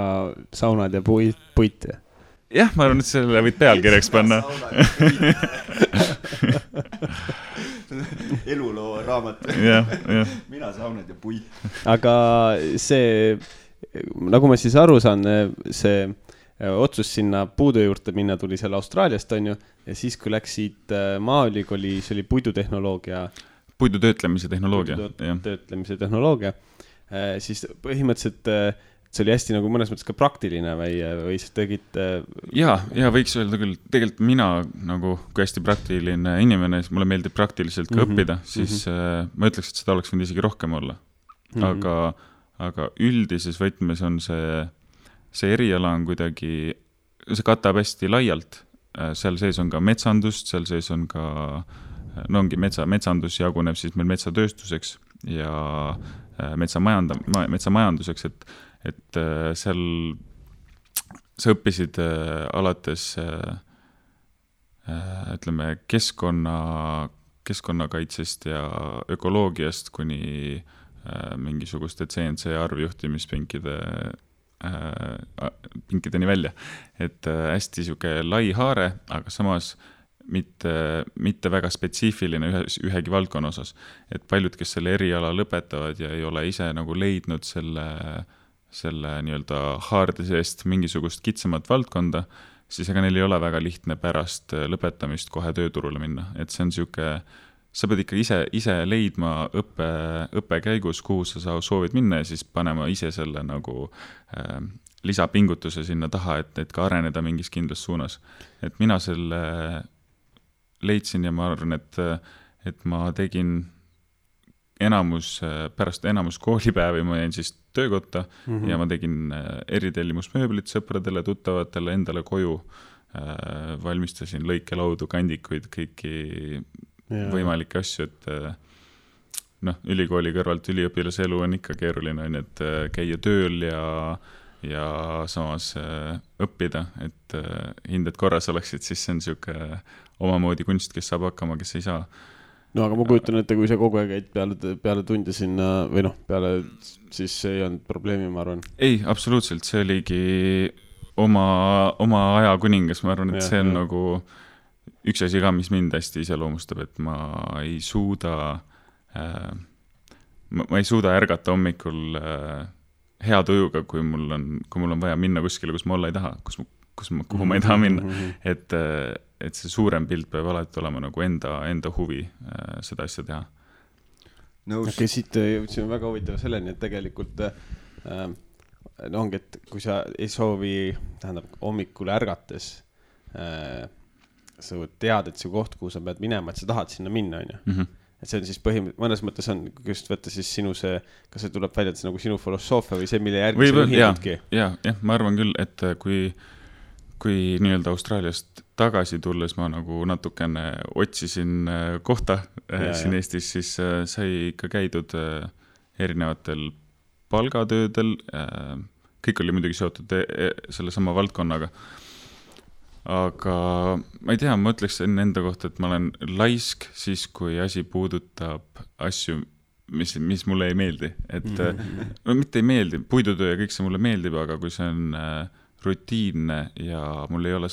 saunad ja puit. Jah, ma arvan, et selle võid pealkirjaks panna. Eluloo raamat. Mina saunad ja puit. Aga see, nagu ma siis aru saan, see otsus sinna puudu juurde minna tuli seal Austraaliast, on ju, ja siis kui läksid Maaülikooli, see oli puidutehnoloogia. Puidutöötlemise tehnoloogia. Töötlemise tehnoloogia. Siis põhimõtteliselt see oli hästi nagu mõnes mõttes ka praktiline või sa tegid... Ja võiks öelda küll, tegelikult mina nagu kui hästi praktiline inimene, siis mulle meeldib praktiliselt ka õppida, siis ma ütleks, et seda oleks võinud isegi rohkem olla. Aga üldises võtmes on see eriala on kuidagi, see katab hästi laialt. Seal sees on ka metsandust, seal sees on ka, ongi metsandus jaguneb siis meil metsatööstuseks ja metsamajanduseks, et seal sa õppisid alates ütleme keskkonnakaitsest ja ökoloogiast kuni mingisuguste CNC arvjuhtimispinkideni välja. Et hästi siuke lai haare, aga samas mitte väga spetsiifiline ühegi valdkonna osas. Et paljud, kes selle eriala lõpetavad ja ei ole ise nagu leidnud selle nii-öelda haarde seest mingisugust kitsamat valdkonda, siis ega neil ei ole väga lihtne pärast lõpetamist kohe tööturule minna. Et see on siuke, sa pead ikka ise leidma õppe käigus, kuhu sa soovid minna ja siis panema ise selle nagu lisapingutuse sinna taha, et ka areneda mingis kindlas suunas. Et mina selle leidsin ja ma arvan, et ma tegin pärast enamus koolipäevi ma jäin siis töökotta ja ma tegin eritellimusmööblit sõpradele, tuttavatele, endale koju, valmistasin lõikelaudu, kandikuid, kõiki võimalikke asju, et ülikooli kõrvalt üliõpilase elu on ikka keeruline, et käia tööl ja samas õppida, et hinded korras oleksid, siis see on siuke omamoodi kunst, kes saab hakkama, kes ei saa. No aga ma kujutan ette, kui sa kogu aeg käid peale tunde sinna või peale, siis see ei olnud probleemi, ma arvan. Ei, absoluutselt, see oligi oma aja kuningas, ma arvan, et see on nagu üks asi ka, mis mind hästi iseloomustab, et ma ei suuda ärgata hommikul hea tujuga, kui mul on vaja minna kuskile, kus ma olla ei taha, kuhu ma ei taha minna, et see suurem pilt peab alati olema nagu enda huvi seda asja teha. Okay, siit jõudsime väga huvitava selleni, et tegelikult ongi, et kui sa ei soovi, hommikul ärgates sa tead, et see koht, kuhu sa pead minema, et sa tahad sinna minna, on ju. Et see on siis mõnes mõttes on, kui just võtta siis sinu kas see tuleb välja, et see nagu sinu filosoofia või see, mille järgi sa ühinudki? Jah, ma arvan küll, et kui nii-öelda Austraaliast tagasi tulles ma nagu natukene otsisin kohta siin Eestis, siis sai ikka käidud erinevatel palgatöödel, kõik oli muidugi seotud selle sama valdkonnaga. Aga ma ei tea, ma ütleksin enda kohta, et ma olen laisk siis, kui asi puudutab asju, mis mulle ei meeldi. Et mitte ei meeldi, puidutöö ja kõik see mulle meeldib, aga kui see on rutiinne ja mul ei ole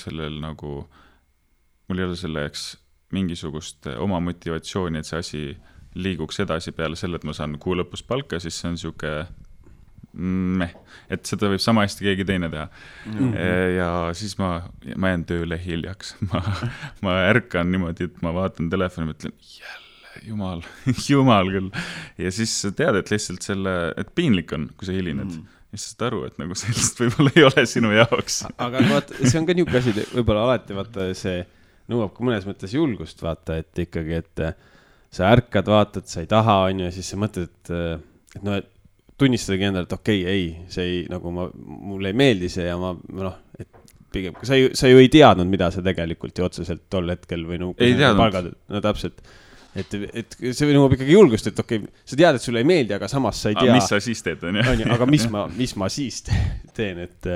selleks mingisugust oma motivatsiooni, et see asi liiguks edasi peale selle, et ma saan kuu lõpus palka, siis see on siuke et seda võib sama hästi keegi teine teha. Ja siis ma jään tööle hiljaks. Ma ärkan niimoodi, et ma vaatan telefoni ja mõtlen, jälle jumal küll. Ja siis sa tead, et lihtsalt et piinlik on, kui sa hilined. Ja siis saad aru, et nagu sellist võib-olla ei ole sinu jaoks. Aga vaata, see on ka niuke asi, võib-olla alati vaata see nõuab ka mõnes mõttes julgust vaata, et ikkagi, et sa ärkad, vaatad, sa ei taha, on ju, ja siis sa mõtled, et no, tunnistadagi endale, et okei, ei, see ei, nagu mulle ei meeldi see ja et pigem, sa ju ei teadnud, mida sa tegelikult ju otseselt tol hetkel või ei teadnud. No täpselt. Et see nõuab ikkagi julgust, et okei, sa tead, et sulle ei meeldi, aga samas sa ei tea. Mis sa siis teed, on ju? Aga mis ma siis teen, et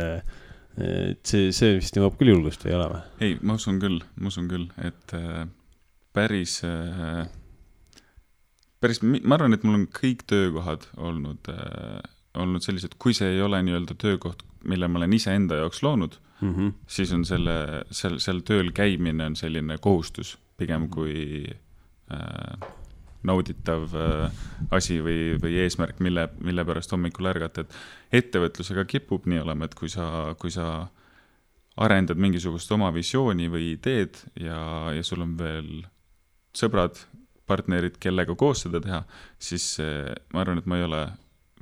see vist nõuab küll julgust või ei ole või? Ei, ma usun küll, et päris, ma arvan, et mul on kõik töökohad olnud sellised, kui see ei ole nii-öelda töökoht, mille ma olen ise enda jaoks loonud, siis on seal tööl käimine on selline kohustus, pigem kui nauditav asi või eesmärk, mille pärast hommikul ärgata, et ettevõtlusega kipub nii olema, et kui sa arendad mingisugust oma visiooni või ideed ja sul on veel sõbrad, partnerid, kellega koos seda teha, siis ma arvan, et ma ei ole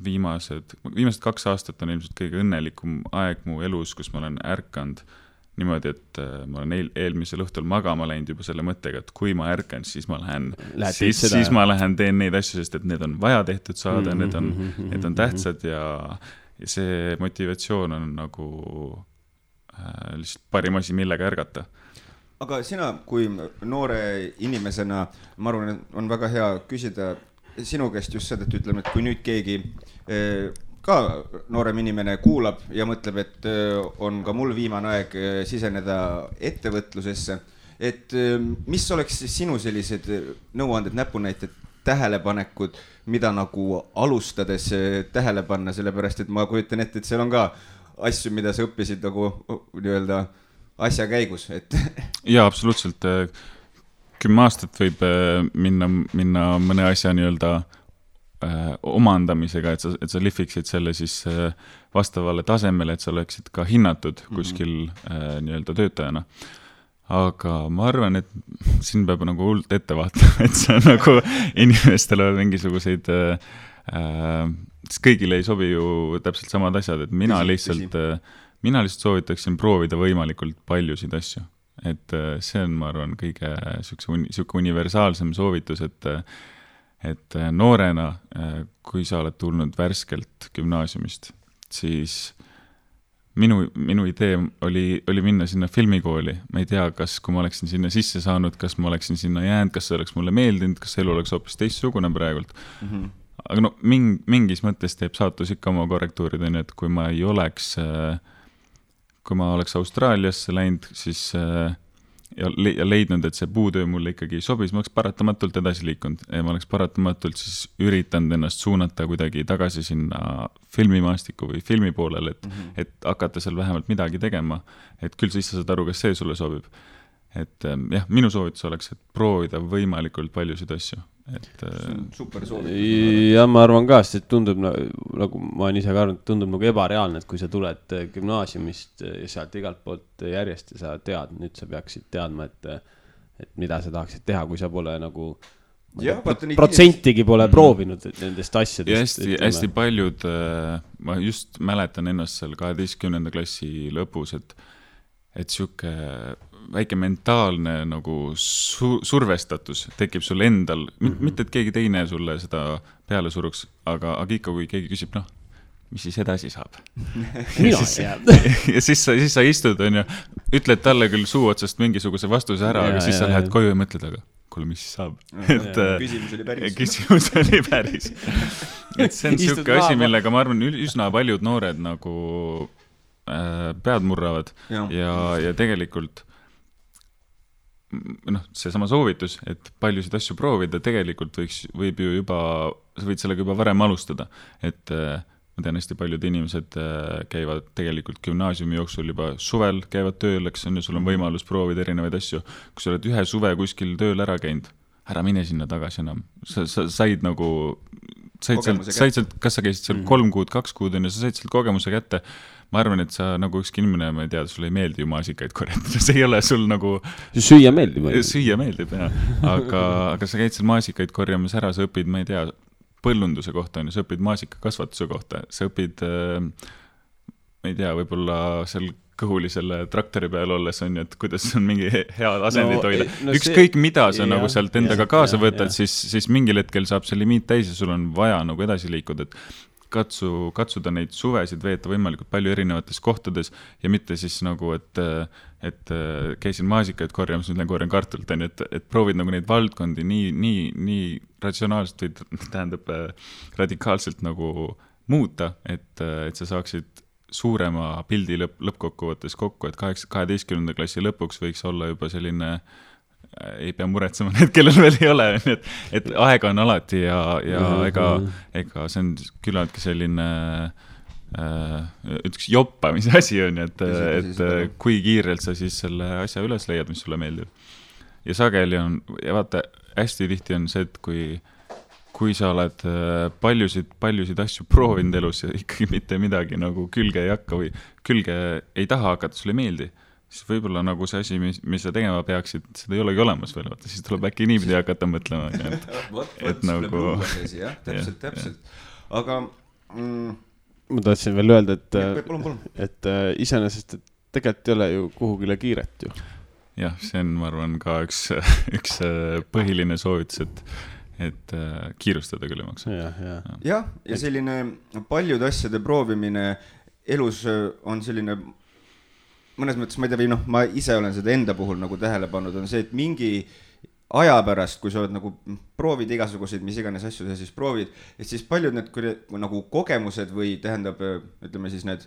viimased 2 aastat on ilmselt kõige õnnelikum aeg mu elus, kus ma olen ärkanud niimoodi, et ma olen eelmisel õhtul magama läinud juba selle mõttega, et kui ma ärkan, siis ma lähen ma lähen teen neid asju, sest et need on vaja tehtud saada, need on tähtsad ja see motivatsioon on nagu lihtsalt parim asi, millega ärgata. Aga sina, kui noore inimesena, ma arvan, et on väga hea küsida sinu käest just seda, et ütleme, et kui nüüd keegi ka noorem inimene kuulab ja mõtleb, et on ka mul viimane aeg siseneda ettevõtlusesse, et mis oleks sinu sellised nõuanded, näpunäited, tähelepanekud, mida nagu alustades tähele panna, sellepärast, et ma kujutan ette, et seal on ka asju, mida sa õppisid nagu nii-öelda asja käigus, et jaa, absoluutselt. 10 aastat võib minna mõne asja nii-öelda omandamisega, et sa lihviksid selle siis vastavale tasemele, et sa oleksid ka hinnatud kuskil nii-öelda töötajana. Aga ma arvan, et siin peab nagu hullult ette vaatama, et see on nagu inimestele mingisuguseid kõigile ei sobi ju täpselt samad asjad, et mina lihtsalt soovitaksin proovida võimalikult paljusid asju. Et see on, ma arvan, kõige siuke universaalsem soovitus, et noorena, kui sa oled tulnud värskelt gümnaasiumist, siis minu idee oli minna sinna filmikooli. Ma ei tea, kas kui ma oleksin sinna sisse saanud, kas ma oleksin sinna jäänud, kas see oleks mulle meeldinud, kas elu oleks hoopis teistsugune praegult. Aga no mingis mõttes teeb saatus ikka oma korrektuurid, et kui ma oleks Austraaliasse läinud, siis ja leidnud, et see puutöö mulle ikkagi sobis, ma oleks paratamatult edasi liikunud ja ma oleks paratamatult siis üritanud ennast suunata kuidagi tagasi sinna filmimaastiku või filmi poolele, et hakata seal vähemalt midagi tegema, et küll siis sa saad aru, kas see sulle sobib. Et jah, minu soovitus oleks, et proovida võimalikult paljusid asju. Super soovitus. Ja ma arvan ka, sest tundub, nagu ma olen ise ka arvanud, tundub nagu ebareaalne, et kui sa tuled gümnaasiumist ja sealt igalt poolt järjest ja sa tead, nüüd sa peaksid teadma, et mida sa tahaksid teha, kui sa pole nagu protsentigi pole proovinud nendest asjadest. Ja hästi paljud, ma just mäletan ennast seal 12. klassi lõpus, et siuke väike mentaalne nagu survestatus tekib sul endal, mitte et keegi teine sulle seda peale suruks, aga ikka kui keegi küsib, mis siis edasi saab? Ja siis sa istud, on ju, ütled talle küll suu otsast mingisuguse vastuse ära, aga siis sa lähed koju ja mõtled, aga kuule, mis siis saab? Küsimus oli päris. Et see on siuke asi, millega ma arvan, üsna paljud noored nagu pead murravad ja tegelikult see sama soovitus, et paljusid asju proovida, tegelikult võib ju juba, sa võid sellega juba varem alustada, et ma tean, hästi paljud inimesed käivad tegelikult gümnaasiumi jooksul juba suvel, käivad tööl, eks on ja sul on võimalus proovida erinevaid asju. Kui sa oled ühe suve kuskil tööl ära käinud, ära mine sinna tagasi enam. Sa said nagu, said sealt, kas sa käisid seal 3 kuud, 2 kuud ja sa said sealt kogemuse kätte. ma arvan, et sa nagu ükski inimene, ma ei tea, sulle ei meeldi ju maasikaid korjata, see ei ole sul nagu süüa meeldib, jah, aga sa käid seal maasikaid korjamas ära, sa õpid, ma ei tea, põllunduse kohta on ju, sa õpid maasikakasvatuse kohta, sa õpid ma ei tea, võib-olla seal kõhuli selle traktori peal olles on ju, et kuidas on mingi hea asendit hoida. Ükskõik mida sa nagu sealt endaga kaasa võtad, siis mingil hetkel saab see limiit täis ja sul on vaja nagu edasi liikuda, et katsuda neid suvesid veeta võimalikult palju erinevates kohtades ja mitte siis nagu, et käisin maasikaid korjamas, nüüd korjan kartulit, et proovid nagu neid valdkondi nii ratsionaalselt või tähendab radikaalselt nagu muuta, et sa saaksid suurema pildi lõppkokkuvõttes kokku, et 12. klassi lõpuks võiks olla juba selline, ei pea muretsema need, kellel veel ei ole, et aega on alati ja ega see on küllaltki selline üks joppamise asi on, et kui kiirelt sa siis selle asja üles leiad, mis sulle meeldib. Ja sageli on, ja vaata, hästi tihti on see, et kui sa oled paljusid asju proovinud elus ja ikkagi mitte midagi nagu külge ei hakka või külge ei taha hakata, sulle ei meeldi, siis võib-olla nagu see asi, mis sa tegema peaksid, seda ei olegi olemas veel, vaata, siis tuleb äkki niipidi hakata mõtlema. et nagu... Täpselt. Aga... Ma tahtsin veel öelda, et iseenesest tegelikult ei ole ju kuhugile kiiret ju. Jah, see on, ma arvan, ka üks põhiline soovitus, et kiirustada küll ei maksa. Ja selline paljude asjade proovimine elus on selline, mõnes mõttes, ma ei tea, või ma ise olen seda enda puhul nagu tähele pannud, on see, et mingi aja pärast, kui sa oled nagu proovid igasuguseid, mis iganes asju sa siis proovid, et siis paljud need nagu kogemused või tähendab, ütleme siis need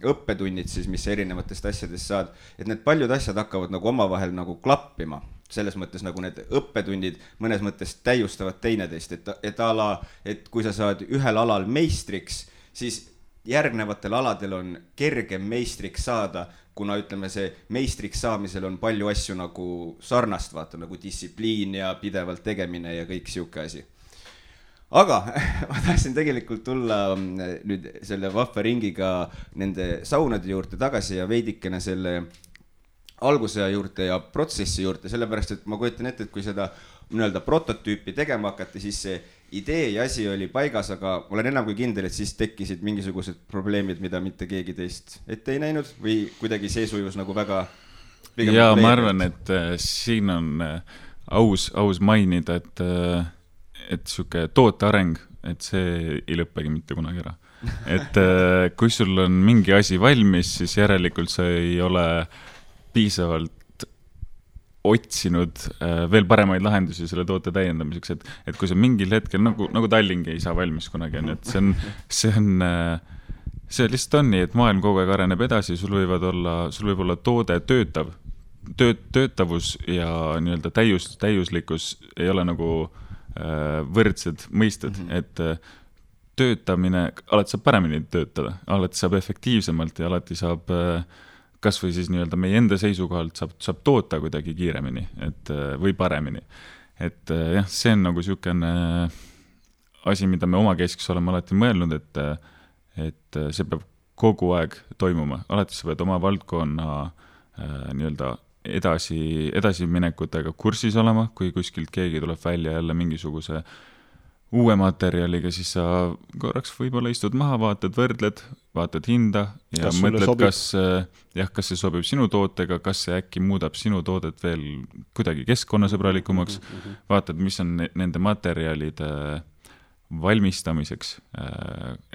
õppetunnid siis, mis erinevatest asjadest saad, et need paljud asjad hakkavad nagu omavahel nagu klappima. Selles mõttes nagu need õppetunnid mõnes mõttes täiustavad teineteist, et kui sa saad ühel alal meistriks, siis järgnevatel aladel on kergem meistriks saada, kuna ütleme see meistriks saamisel on palju asju nagu sarnast, vaata nagu distsipliin ja pidevalt tegemine ja kõik siuke asi. Aga ma tahtsin tegelikult tulla nüüd selle vahva ringiga nende saunade juurde tagasi ja veidikene selle alguse juurde ja protsessi juurde, sellepärast, et ma kujutan ette, et kui seda nii-öelda prototüüpi tegema hakati, siis see idee ja asi oli paigas, aga olen enam kui kindel, et siis tekkisid mingisugused probleemid, mida mitte keegi teist ette ei näinud või kuidagi see sujus nagu väga... Ja ma arvan, et siin on aus mainida, et siuke tooteareng, et see ei lõppegi mitte kunagi ära. Et kui sul on mingi asi valmis, siis järelikult sa ei ole piisavalt otsinud veel paremaid lahendusi selle toote täiendamiseks, et kui sa mingil hetkel, nagu Tallingi ei saa valmis kunagi, et see lihtsalt on nii, et maailm kogu aeg areneb edasi, sul võib olla toode töötavus ja nii-öelda täiuslikkus ei ole nagu võrdsed mõisted, et töötamine, alati saab paremini töötada, alati saab efektiivsemalt ja alati saab kas või siis nii-öelda meie enda seisukohalt saab toota kuidagi kiiremini või paremini. Et jah, see on nagu siukene asi, mida me omakeskis oleme alati mõelnud, et see peab kogu aeg toimuma. Alati sa pead oma valdkonna nii-öelda edasiminekutega kursis olema, kui kuskilt keegi tuleb välja jälle mingisuguse uue materjaliga, siis sa korraks võib-olla istud maha, vaatad hinda ja mõtled, kas see sobib sinu tootega, kas see äkki muudab sinu toodet veel kuidagi keskkonnasõbralikumaks, vaatad, mis on nende materjalide valmistamiseks,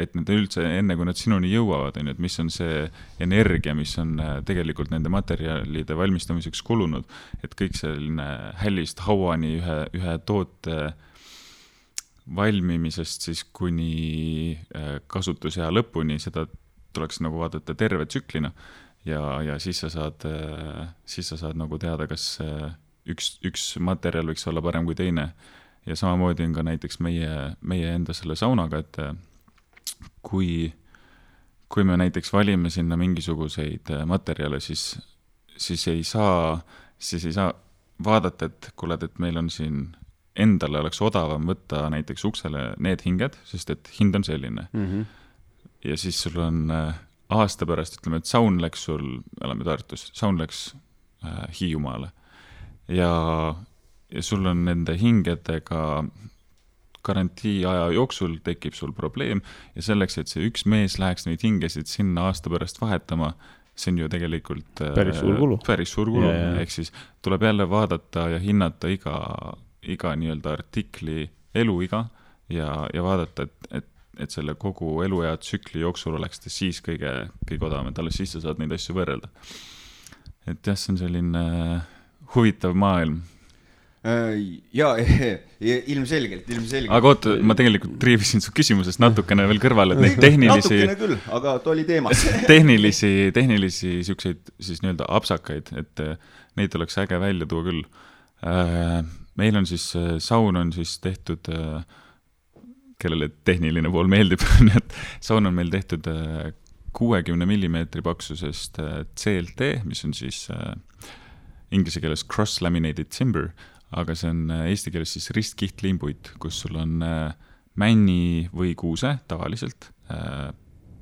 et need üldse enne, kui nad sinuni jõuavad, et mis on see energia, mis on tegelikult nende materjalide valmistamiseks kulunud, et kõik selline hällist hauani ühe toote valmimisest siis kuni kasutusea lõpuni, seda tuleks nagu vaadata terve tsüklina ja siis sa saad nagu teada, kas üks materjal võiks olla parem kui teine. Ja samamoodi on ka näiteks meie enda selle saunaga, et kui me näiteks valime sinna mingisuguseid materjale, siis ei saa vaadata, et meil on siin endale oleks odavam võtta näiteks uksele need hinged, sest et hind on selline. ja siis sul on aasta pärast, ütleme, et saun läks sul, oleme Tartus, saun läks Hiiumaale ja sul on nende hingedega garantii aja jooksul tekib sul probleem ja selleks, et see üks mees läheks neid hingesid sinna aasta pärast vahetama, see on ju tegelikult päris suur kulu. Ehk siis tuleb jälle vaadata ja hinnata iga nii-öelda artikli eluiga ja vaadata, et selle kogu eluea tsükli jooksul oleks ta siis kõige odavam, et alles siis sa saad neid asju võrrelda. Et jah, see on selline huvitav maailm. Jaa, ilmselgelt. Aga oota, ma tegelikult triivisin su küsimusest natukene veel kõrvale, et neid tehnilisi... Natukene küll, aga ta oli teemas. tehnilisi siukseid siis nii-öelda apsakaid, et neid oleks äge välja tuua küll. Meil on siis, saun on siis tehtud, kellele tehniline pool meeldib, et saun on meil tehtud 60 mm paksusest CLT, mis on siis inglise keeles cross-laminated timber, aga see on eesti keeles siis ristkihtlimpuit, kus sul on männi või kuuse tavaliselt,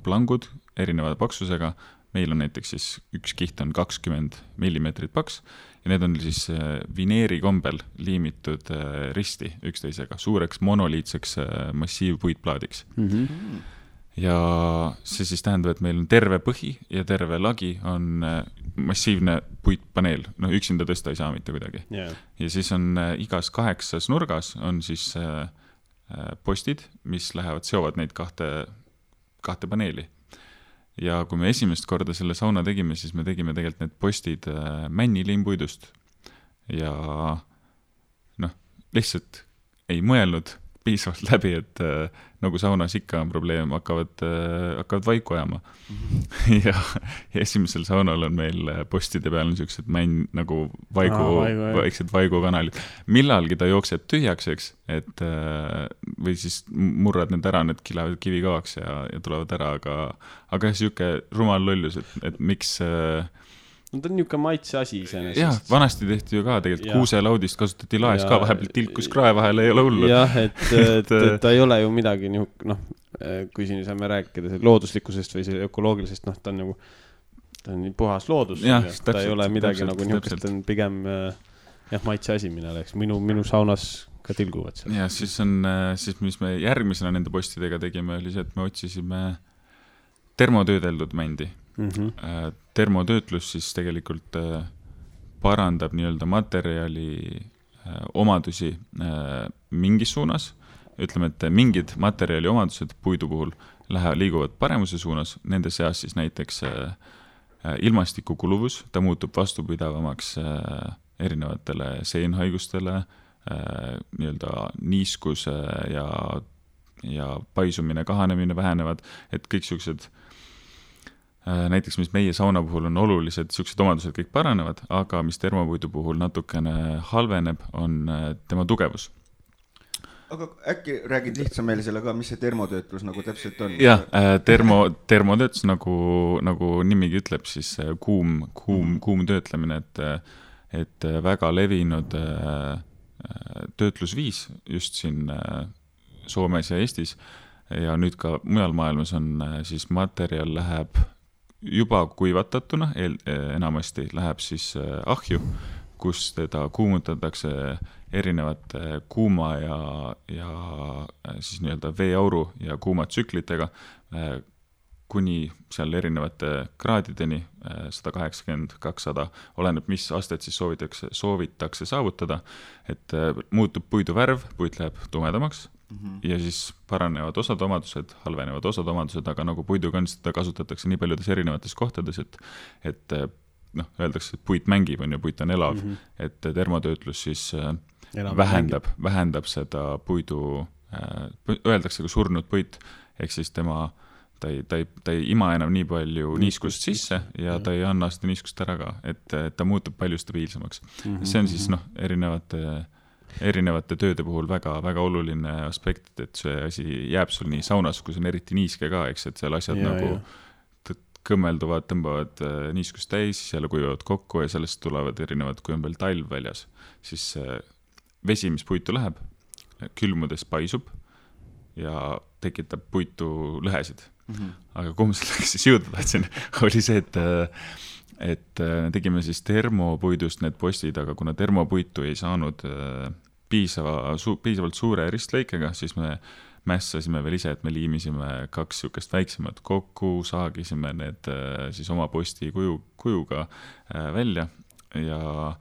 plangud erineva paksusega, meil on näiteks siis üks kiht on 20 mm paks ja need on siis vineeri kombel liimitud risti üksteisega, suureks monoliitseks massiivpuitplaadiks. Ja see siis tähendab, et meil on terve põhi ja terve lagi on massiivne puitpaneel, üksinda tõsta ei saa mitte kuidagi. Yeah. Ja siis on igas 8 nurgas on siis postid, mis seovad neid kahte paneeli. Ja kui me esimest korda selle sauna tegime, siis me tegime tegelikult need postid männilimpuidust ja lihtsalt ei mõelnud piisavalt läbi, et nagu saunas ikka on probleem, hakkavad vaiku ajama. Ja esimesel saunal on meil postide peal niisugused nagu vaiksed vaigukanalid. Millalgi ta jookseb tühjaks, eks, et või siis murrad need ära, need kilevad kivikavaks ja tulevad ära, aga siuke rumal lollus, et miks... No ta on niuke maitse asi iseenesest. Jah, vanasti tehti ju ka tegelikult kuuselaudist kasutati laes ka, vahepeal tilkus krae vahel ei ole hullu. Jah, et ta ei ole ju midagi kui siin saame rääkida looduslikkusest või ökoloogilisest, ta on puhas loodus. Ja, ta ei ole midagi nagu niukest, ta on pigem maitse asi, mille oleks. Minu saunas ka tilguvad seal. Ja siis mis me järgmisena nende postidega tegime, oli see, et me otsisime termotöödeldud mändi. Termotöötlus siis tegelikult parandab nii-öelda materjali omadusi mingis suunas. Ütleme, et mingid materjali omadused puidu puhul liiguvad paremuse suunas, nende seas siis näiteks ilmastiku kuluvus, ta muutub vastupidavamaks erinevatele seenhaigustele, nii-öelda niiskuse ja paisumine, kahanemine vähenevad, et kõik siuksed näiteks, mis meie sauna puhul on olulised, siuksed omadused kõik paranevad, aga mis termopuidu puhul natukene halveneb, on tema tugevus. Aga äkki räägid lihtsam meile selle ka, mis see termotöötlus nagu täpselt on? Jah, termotöötlus nagu nimigi ütleb, siis kuum töötlemine, et väga levinud töötlusviis just siin Soomes ja Eestis ja nüüd ka mujal maailmas on siis materjal läheb juba kuivatatuna, enamasti läheb siis ahju, kus teda kuumutatakse erinevate kuuma ja siis nii-öelda veeauru ja kuumatsüklitega kuni seal erinevate kraadideni 180-200, oleneb mis astet siis soovitakse saavutada, et muutub puidu värv, puit läheb tumedamaks ja siis paranevad osad omadused, halvenevad osad omadused, aga nagu puiduga on, seda kasutatakse nii paljudes erinevates kohtades, et öeldakse, et puit mängib, on ju, puit on elav, et termotöötlus siis vähendab seda puidu, öeldakse ka surnud puit, ehk siis ta ei ima enam nii palju niiskust sisse ja ta ei anna seda niiskust ära ka, et ta muutub palju stabiilsemaks. See on siis erinevate tööde puhul väga oluline aspekt, et see asi jääb sul nii saunas, kui see on eriti niiske ka, eks, et seal asjad kõmmelduvad, tõmbavad niiskust täis, siis jälle kuivavad kokku ja sellest tulevad erinevad, kui on veel talv väljas, siis vesi, mis puitu läheb, külmudes paisub ja tekitab puitu lõhesid. Aga kuhu ma selleks siis jõuda tahtsin, oli see, et tegime siis termopuidust need postid, aga kuna termopuitu ei saanud piisavalt suure ristlõikega, siis me mässasime veel ise, et me liimisime 2 sükest väiksemat kokku, saagisime need siis oma posti kujuga välja ja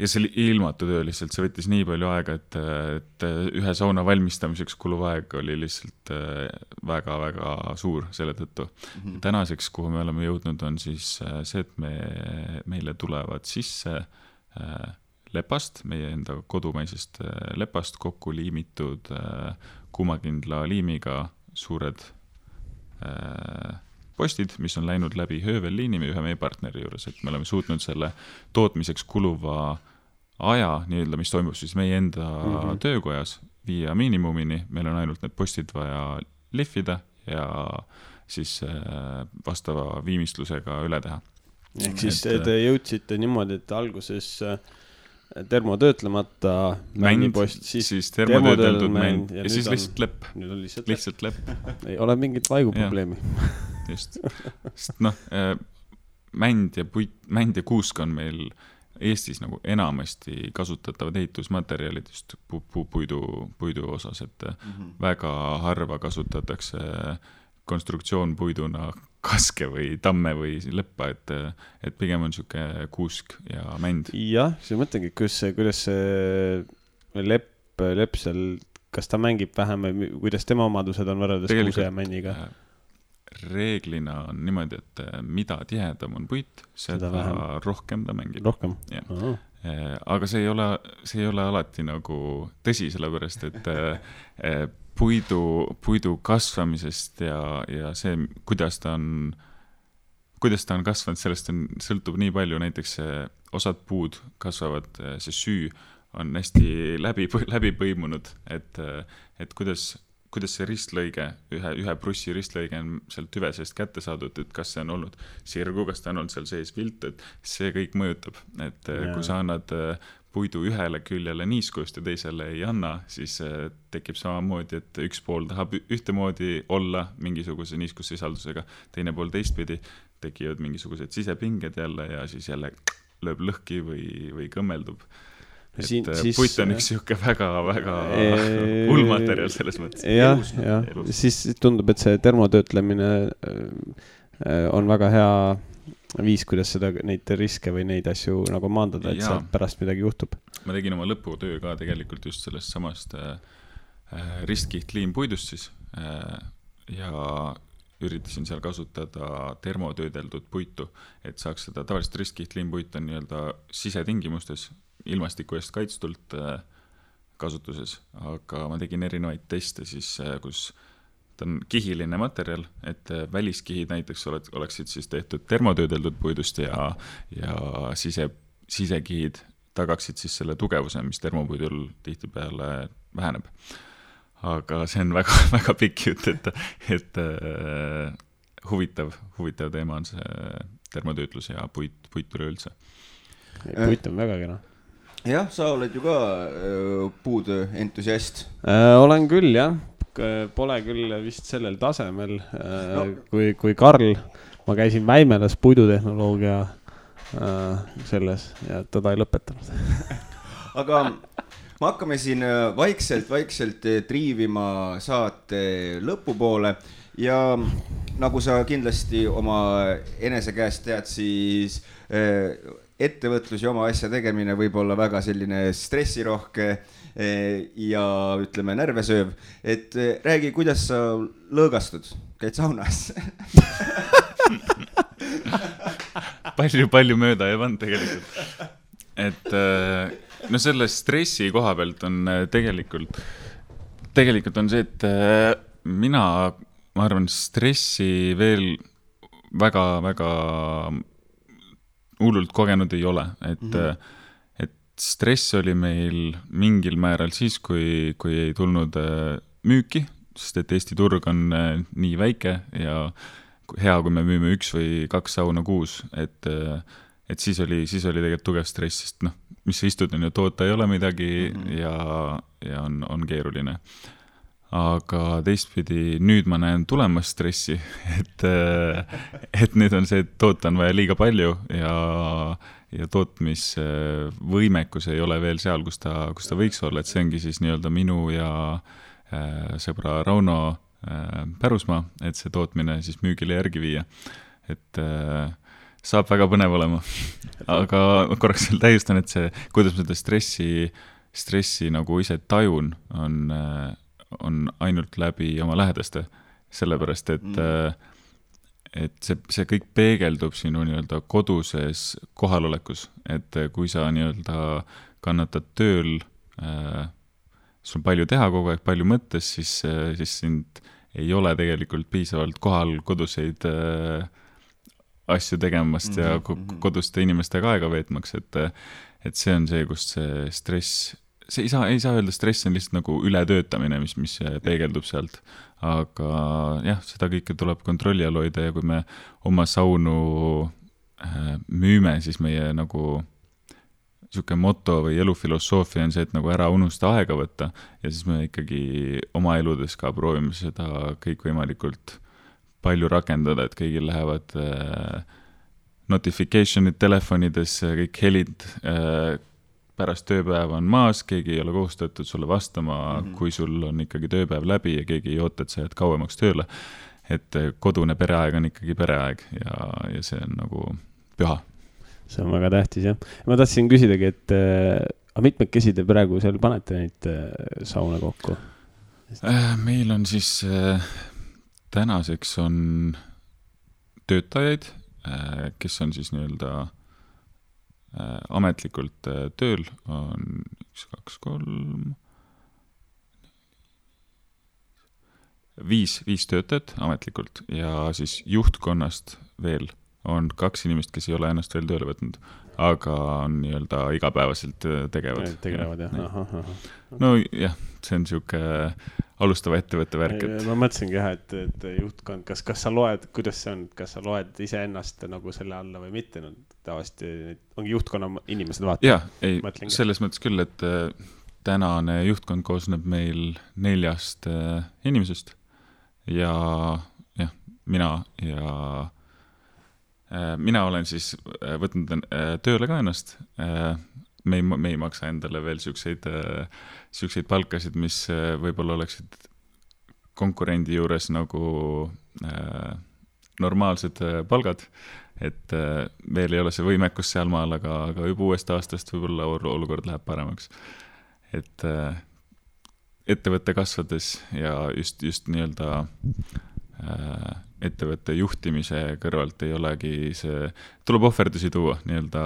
see ilmatu töö lihtsalt, see võttis nii palju aega, et ühe sauna valmistamiseks kuluv aeg oli lihtsalt väga-väga suur selle tõttu. Tänaseks, kuhu me oleme jõudnud, on siis see, et meile tulevad sisse lepast, meie enda kodumaisest lepast kokku liimitud kuumakindla liimiga suured postid, mis on läinud läbi höövelliini ühe meie partneri juures, et me oleme suutnud selle tootmiseks kuluva aja, nii-öelda, mis toimub siis meie enda töökojas, viia miinimumini, meil on ainult need postid vaja lihvida ja siis vastava viimistlusega üle teha. Ehk siis te jõudsite niimoodi, et alguses termotöötlemata männipost, siis termotöödeldud mänd ja siis lihtsalt lepp. Nüüd on lihtsalt lepp. Ei ole mingit vaiguprobleemi. Just. Sest mänd ja kuusk on meil Eestis nagu enamasti kasutatavad ehitusmaterjalid just puidu osas, et väga harva kasutatakse konstruktsioonpuiduna kaske või tamme või leppa, et pigem on niisugune kuusk ja mänd. Jah, see mõtlengi, kuidas see lepp seal, kas ta mängib vähem või kuidas tema omadused on võrreldes kuuse ja männiga? Reeglina on niimoodi, et mida tihedam on puit, seda rohkem ta mängib. Rohkem? Aga see ei ole alati nagu tõsi, sellepärast, et puidu kasvamisest ja see, kuidas ta on kasvanud, sellest sõltub nii palju, näiteks osad puud kasvavad, see süü on hästi läbi põimunud, et kuidas see ristlõige, ühe prussi ristlõige on sealt tüve seest kätte saadud, et kas see on olnud sirgu, kas ta on olnud seal sees vilt, et see kõik mõjutab, et kui sa annad puidu ühele küljele niiskust ja teisele ei anna, siis tekib samamoodi, et üks pool tahab ühtemoodi olla mingisuguse niiskussisaldusega, teine pool teistpidi, tekivad mingisugused sisepinged jälle ja siis jälle lööb lõhki või kõmmeldub. Puit on üks siuke väga-väga hullmaterjal selles mõttes. Ja. Siis tundub, et see termotöötlemine on väga hea viis, kuidas neid riske või neid asju nagu maandada, et seal pärast midagi juhtub. Ma tegin oma lõputöö ka tegelikult just sellest samast ristkihtlliimpuidust siis ja üritasin seal kasutada termotöödeldud puitu, et saaks seda tavaliselt ristkihtlliimpuit on nii-öelda sisetingimustes ilmastiku eest kaitstult kasutuses, aga ma tegin erinevaid teste siis, kus ta on kihiline materjal, et väliskihid näiteks oleksid siis tehtud termotöödeldud puidust ja sisekihid tagaksid siis selle tugevuse, mis termopuidul tihtipeale väheneb. Aga see on väga, väga pikk jutt, et huvitav teema on see termotöötlus ja puit üleüldse. Puit on väga kena. Jah, sa oled ju ka puutöö entusiast. Olen küll, jah. Pole küll vist sellel tasemel kui Karl. Ma käisin Väimelas puidutehnoloogia selles ja teda ei lõpetanud. Aga me hakkame siin vaikselt triivima saate lõpupoole ja nagu sa kindlasti oma enese käest tead, siis ettevõtlus ja oma asja tegemine võib olla väga selline stressirohke ja ütleme närvesööv, et räägi, kuidas sa lõõgastud, käid saunas? Palju mööda ei pannud tegelikult. Et no selle stressi koha pealt on tegelikult on see, et ma arvan, stressi veel väga hullult kogenud ei ole, et stress oli meil mingil määral siis, kui ei tulnud müüki, sest et Eesti turg on nii väike ja hea, kui me müüme 1 või 2 sauna kuus, et siis oli tegelikult tugev stress, sest mis sa istud, on ju, toota ei ole midagi ja on keeruline. aga teistpidi nüüd ma näen tulemas stressi, et nüüd on see, et toota on vaja liiga palju ja tootmisvõimekus ei ole veel seal, kus ta võiks olla, et see ongi siis nii-öelda minu ja sõbra Rauno pärusmaa, et see tootmine siis müügile järgi viia, et saab väga põnev olema. Aga korraks veel täiustan, et see, kuidas ma seda stressi nagu ise tajun, on ainult läbi oma lähedaste, sellepärast, et see kõik peegeldub sinu nii-öelda koduses kohalolekus, et kui sa nii-öelda kannatad tööl, sul on palju teha kogu aeg, palju mõttes, siis sind ei ole tegelikult piisavalt kohal koduseid asju tegemast ja koduste inimestega aega veetmaks, et see on see, kust see stress, see ei saa öelda, stress on lihtsalt nagu ületöötamine, mis peegeldub sealt, aga jah, seda kõike tuleb kontrolli all hoida ja kui me oma saunu müüme, siis meie nagu niisugune moto või elufilosoofia on see, et nagu ära unusta aega võtta ja siis me ikkagi oma eludes ka proovime seda kõikvõimalikult palju rakendada, et kõigil lähevad notification'id telefonides, kõik helid pärast tööpäeva on maas, keegi ei ole kohustatud sulle vastama, kui sul on ikkagi tööpäev läbi ja keegi ei oota, et sa jääd kauemaks tööle. Et kodune pereaeg on ikkagi pereaeg ja see on nagu püha. See on väga tähtis, jah. Ma tahtsin küsidagi, et mitmekesi te praegu seal panete neid sauna kokku? Meil on siis tänaseks on töötajaid, kes on siis nii-öelda ametlikult tööl, on 1, 2, 3, 5 töötajat ametlikult ja siis juhtkonnast veel on 2 inimest, kes ei ole ennast veel tööle võtnud, aga on nii-öelda igapäevaselt tegevad. Tegelevad, jah. Aha. No jah, see on siuke alustava ettevõtte värk. Ma mõtlesingi jah, et juhtkond, kas sa loed, kuidas see on, kas sa loed ise ennast nagu selle alla või mitte, no tavaliselt ongi juhtkonna inimesed vaata. Jah, ei, selles mõttes küll, et tänane juhtkond koosneb meil 4 inimesest ja jah, mina olen siis võtnud tööle ka ennast. Me ei maksa endale veel siukseid palkasid, mis võib-olla oleksid konkurendi juures nagu normaalsed palgad, et veel ei ole see võimekus sealmaal, aga juba uuest aastast võib-olla olukord läheb paremaks. Et ettevõtte kasvades ja just nii-öelda ettevõtte juhtimise kõrvalt ei olegi see, tuleb ohverdusi tuua nii-öelda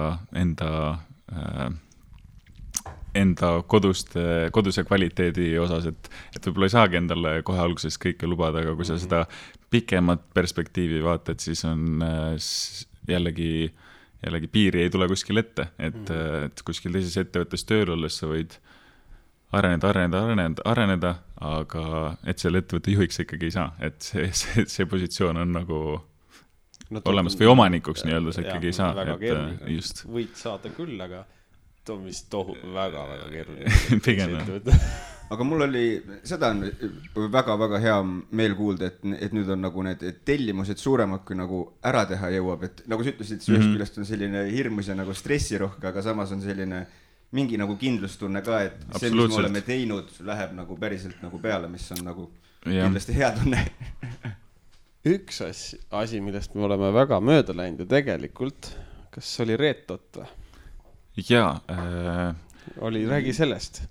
enda koduse kvaliteedi osas, et võib-olla ei saagi endale kohe alguses kõike lubada, aga kui sa seda pikemat perspektiivi vaatad, siis on jällegi piiri ei tule kuskil ette, et kuskil teises ettevõttes tööl olles sa võid areneda, aga et selle ettevõtte juhiks ikkagi ei saa, et see positsioon on nagu olemas või omanikuks nii-öelda sa ikkagi ei saa. Väga keeruline. Just. Võid saada küll, aga too on vist väga-väga keeruline. Pigem. Aga mul oli, seda on väga-väga hea meel kuulda, et nüüd on nagu need tellimused suuremad, kui nagu ära teha jõuab, et nagu sa ütlesid, ühest küljest on selline hirmus ja nagu stressirohke, aga samas on selline mingi nagu kindlustunne ka, et see, mis me oleme teinud, läheb nagu päriselt nagu peale, mis on nagu kindlasti hea tunne. Üks asi, millest me oleme väga mööda läinud ja tegelikult, kas oli Reetot või? Jaa. Räägi sellest.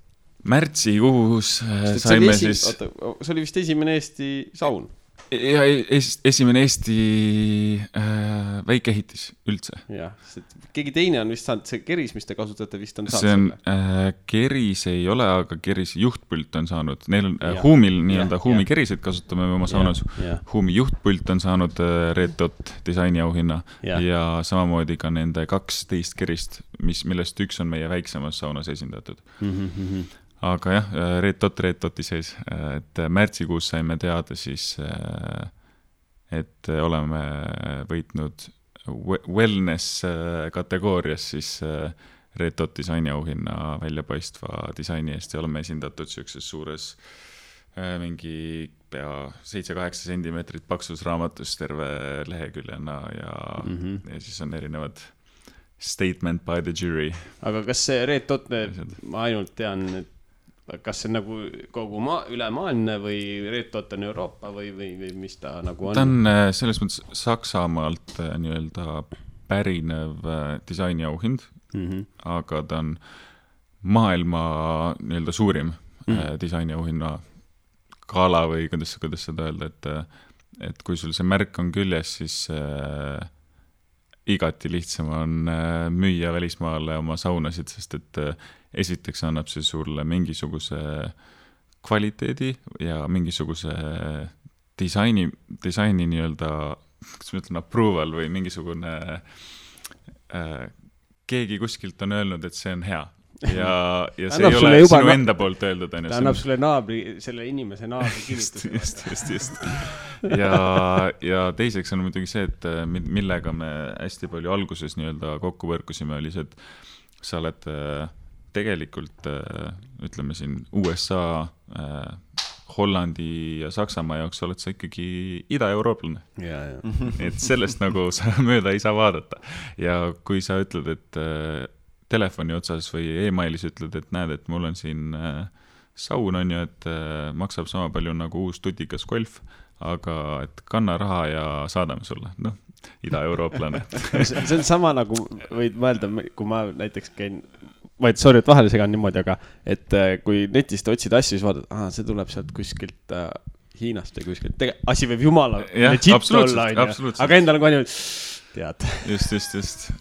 Märtsikuus saime siis... See oli vist esimene Eesti saun. Ja esimene Eesti väikeehitis üldse. Jah, keegi teine on vist saanud, see keris, mis te kasutate, vist on saanud see on, keris ei ole, aga keris juhtpult on saanud. Neil on Huumil nii-öelda Huumi keriseid kasutame oma saunas. Huumi juhtpult on saanud Reetot disaini auhinna ja samamoodi ka nende 12 kerist, millest üks on meie väiksemas saunas esindatud. Aga jah, Reetoti sees, et märtsikuus saime teada siis, et oleme võitnud wellness kategoorias siis Reetot disaini auhinna väljapaistva disaini eest ja oleme esindatud siukses suures mingi pea 7-8 sentimeetrit paksus raamatus terve leheküljena ja siis on erinevad statement by the jury. Aga kas see Red Dot, ma ainult tean, kas see nagu kogu ülemaailmne või Red Dot on Euroopa või mis ta nagu on? Ta on selles mõttes Saksamaalt nii-öelda pärinev disainiauhind, aga ta on maailma nii-öelda suurim disainiauhinna gala või kuidas seda öelda, et kui sul see märk on küljes, siis igati lihtsam on müüa välismaale oma saunasid, sest et esiteks annab see sulle mingisuguse kvaliteedi ja mingisuguse disaini nii-öelda, kas ma ütlen, approval või mingisugune keegi kuskilt on öelnud, et see on hea. Ja see ei ole sinu enda poolt öeldud. Ta annab sulle selle inimese naabri kinnituse. Just. Ja teiseks on muidugi see, et millega me hästi palju alguses nii-öelda kokku võrkusime, oli see, et sa oled tegelikult, ütleme siin USA, Hollandi ja Saksamaa jaoks oled sa ikkagi ida-eurooplane. Et sellest nagu sa mööda ei saa vaadata. Ja kui sa ütled, et telefoni otsas või e-mailis ütled, et näed, et mul on siin saun on ju, et maksab sama palju nagu uus tutikas golf, aga et kanna raha ja saadame sulle. Noh, ida-eurooplane. See on sama nagu võid mõelda, kui ma näiteks käin, sorry, et vahele segan niimoodi, aga et kui netist otsid asju, siis vaatad, see tuleb sealt kuskilt Hiinast või kuskilt. Asi võib jumala legit olla, aga endal on kohe tead. Just.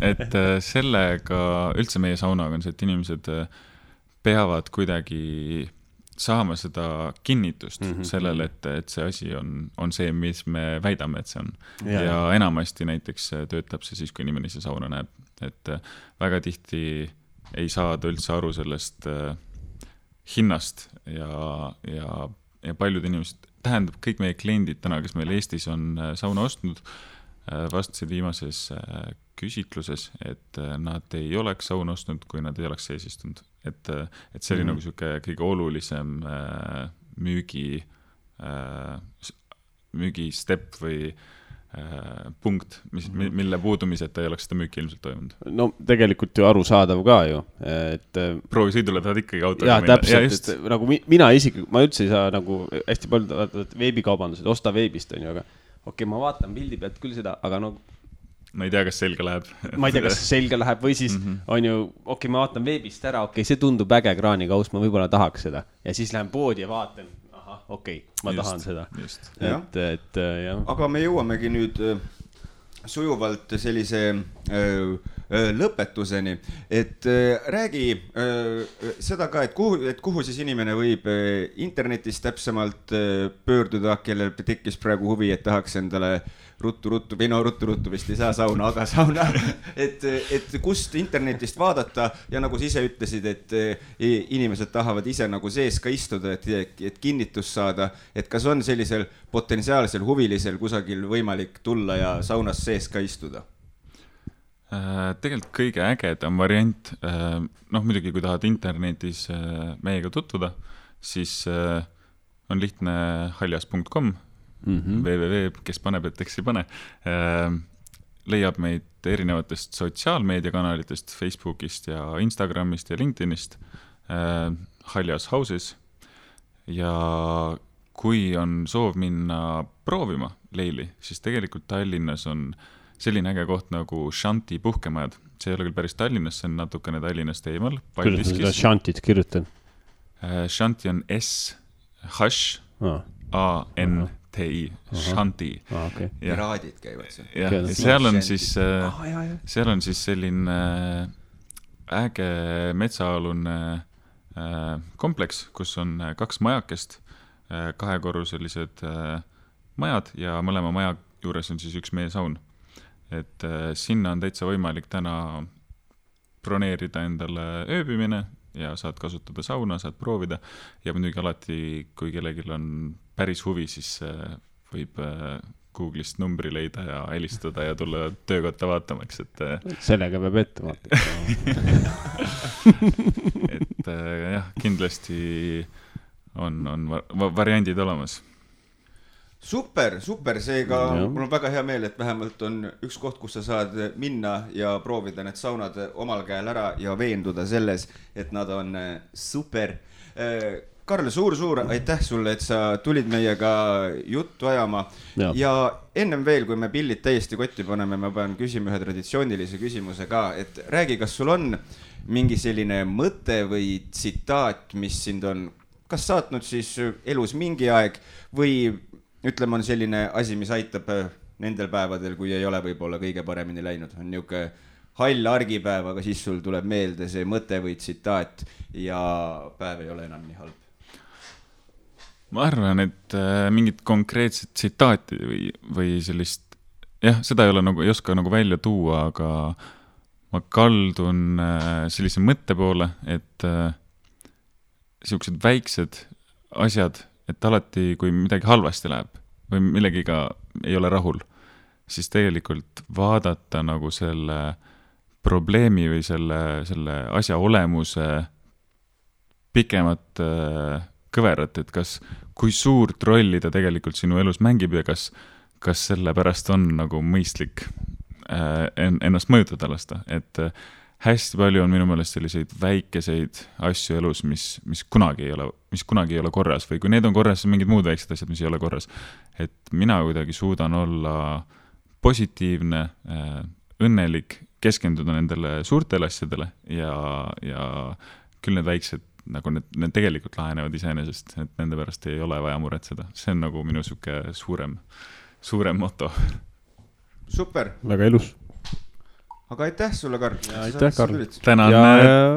Et sellega, üldse meie saunaga on see, et inimesed peavad kuidagi saama seda kinnitust sellele, et see asi on see, mis me väidame, et see on. Ja enamasti näiteks töötab see siis, kui inimene see sauna näeb. Et väga tihti ei saada üldse aru sellest hinnast ja paljud inimesed, tähendab kõik meie kliendid täna, kes meil Eestis on sauna ostnud, vastasid viimases küsitluses, et nad ei oleks sauna ostnud, kui nad ei oleks sees istunud. Et see oli nagu siuke kõige olulisem müügi step või punkt, mille puudumiseta ei oleks seda müüki ilmselt toimunud. No tegelikult ju arusaadav ka ju. Proovi sõidule tahad ikkagi autoga minna. Täpselt, et nagu mina isiklikult, ma üldse ei saa nagu hästi palju veebikaubandused, osta veebist on ju, aga okei, ma vaatan pildi pealt küll seda, aga no ma ei tea, kas selge läheb. Ma ei tea, kas selge läheb või siis on ju, okei, ma vaatan veebist ära, okei, see tundub äge kraanikaus, ma võib-olla tahaks seda. Ja siis lähen poodi ja vaatan, okei, ma tahan seda. Et, jah. Aga me jõuamegi nüüd sujuvalt sellise lõpetuseni, et räägi seda ka, et kuhu siis inimene võib internetis täpsemalt pöörduda, kellel tekkis praegu huvi, et tahaks endale ruttu vist ei saa sauna, aga sauna, et kust internetist vaadata ja nagu sa ise ütlesid, et inimesed tahavad ise nagu sees ka istuda, et kinnitust saada, et kas on sellisel potentsiaalsel huvilisel kusagil võimalik tulla ja saunas sees ka istuda? Tegelikult kõige ägedam variant, muidugi kui tahad internetis meiega tutvuda, siis on lihtne haljas.com, www, kes paneb, et eks ei pane, leiab meid erinevatest sotsiaalmeediakanalitest, Facebookist ja Instagramist ja LinkedInist, Haljas Houses, ja kui on soov minna proovima leili, siis tegelikult Tallinnas on selline äge koht nagu Shanti puhkemajad. See ei ole küll päris Tallinnas, see on natukene Tallinnast eemal. Kuidas seda Shantit kirjutan? Shanti on S-H-A-N-T-I. Shanti. Piraadid käivad seal. Ja seal on siis selline äge metsaalune kompleks, kus on 2 majakest, 2-korruselised majad ja mõlema maja juures on siis üks meie saun. Et sinna on täitsa võimalik täna broneerida endale ööbimine ja saad kasutada sauna, saad proovida ja muidugi alati, kui kellelgi on päris huvi, siis võib Google'ist numbri leida ja helistada ja tulla töökotta vaatamaks, et sellega peab ette vaatama. Et jah, kindlasti on variandid olemas. Super, seega mul on väga hea meel, et vähemalt on üks koht, kus sa saad minna ja proovida need saunad omal käel ära ja veenduda selles, et nad on super. Karl, suur aitäh sulle, et sa tulid meiega juttu ajama ja ennem veel, kui me pillid täiesti kotti paneme, ma pean küsima ühe traditsioonilise küsimuse ka, et räägi, kas sul on mingi selline mõte või tsitaat, mis sind on kas saatnud siis elus mingi aeg või ütleme, on selline asi, mis aitab nendel päevadel, kui ei ole võib-olla kõige paremini läinud. On niuke hall argipäev, aga siis sul tuleb meelde see mõte või tsitaat ja päev ei ole enam nii halb. Ma arvan, et mingit konkreetset tsitaati või sellist, seda ei oska välja tuua, aga ma kaldun sellise mõtte poole, et siuksed väiksed asjad, et alati, kui midagi halvasti läheb või millegiga ei ole rahul, siis tegelikult vaadata nagu selle probleemi või selle asja olemuse pikemat kõverat, et kui suurt rolli ta tegelikult sinu elus mängib ja kas selle pärast on nagu mõistlik ennast mõjutada lasta, et hästi palju on minu meelest selliseid väikeseid asju elus, mis kunagi ei ole korras või kui need on korras, siis mingid muud väiksed asjad, mis ei ole korras. Et mina kuidagi suudan olla positiivne, õnnelik, keskenduda nendele suurtele asjadele ja küll need väiksed, nagu need tegelikult lahenevad iseenesest, et nende pärast ei ole vaja muretseda. See on nagu minu suke suurem moto. Super. Väga ilus. Aga aitäh sulle, Karl. Aitäh, Karl.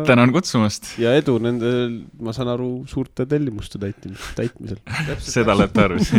Tänan kutsumast. Ja edu nende, ma saan aru, suurte tellimuste täitmisel. Seda olete arvus.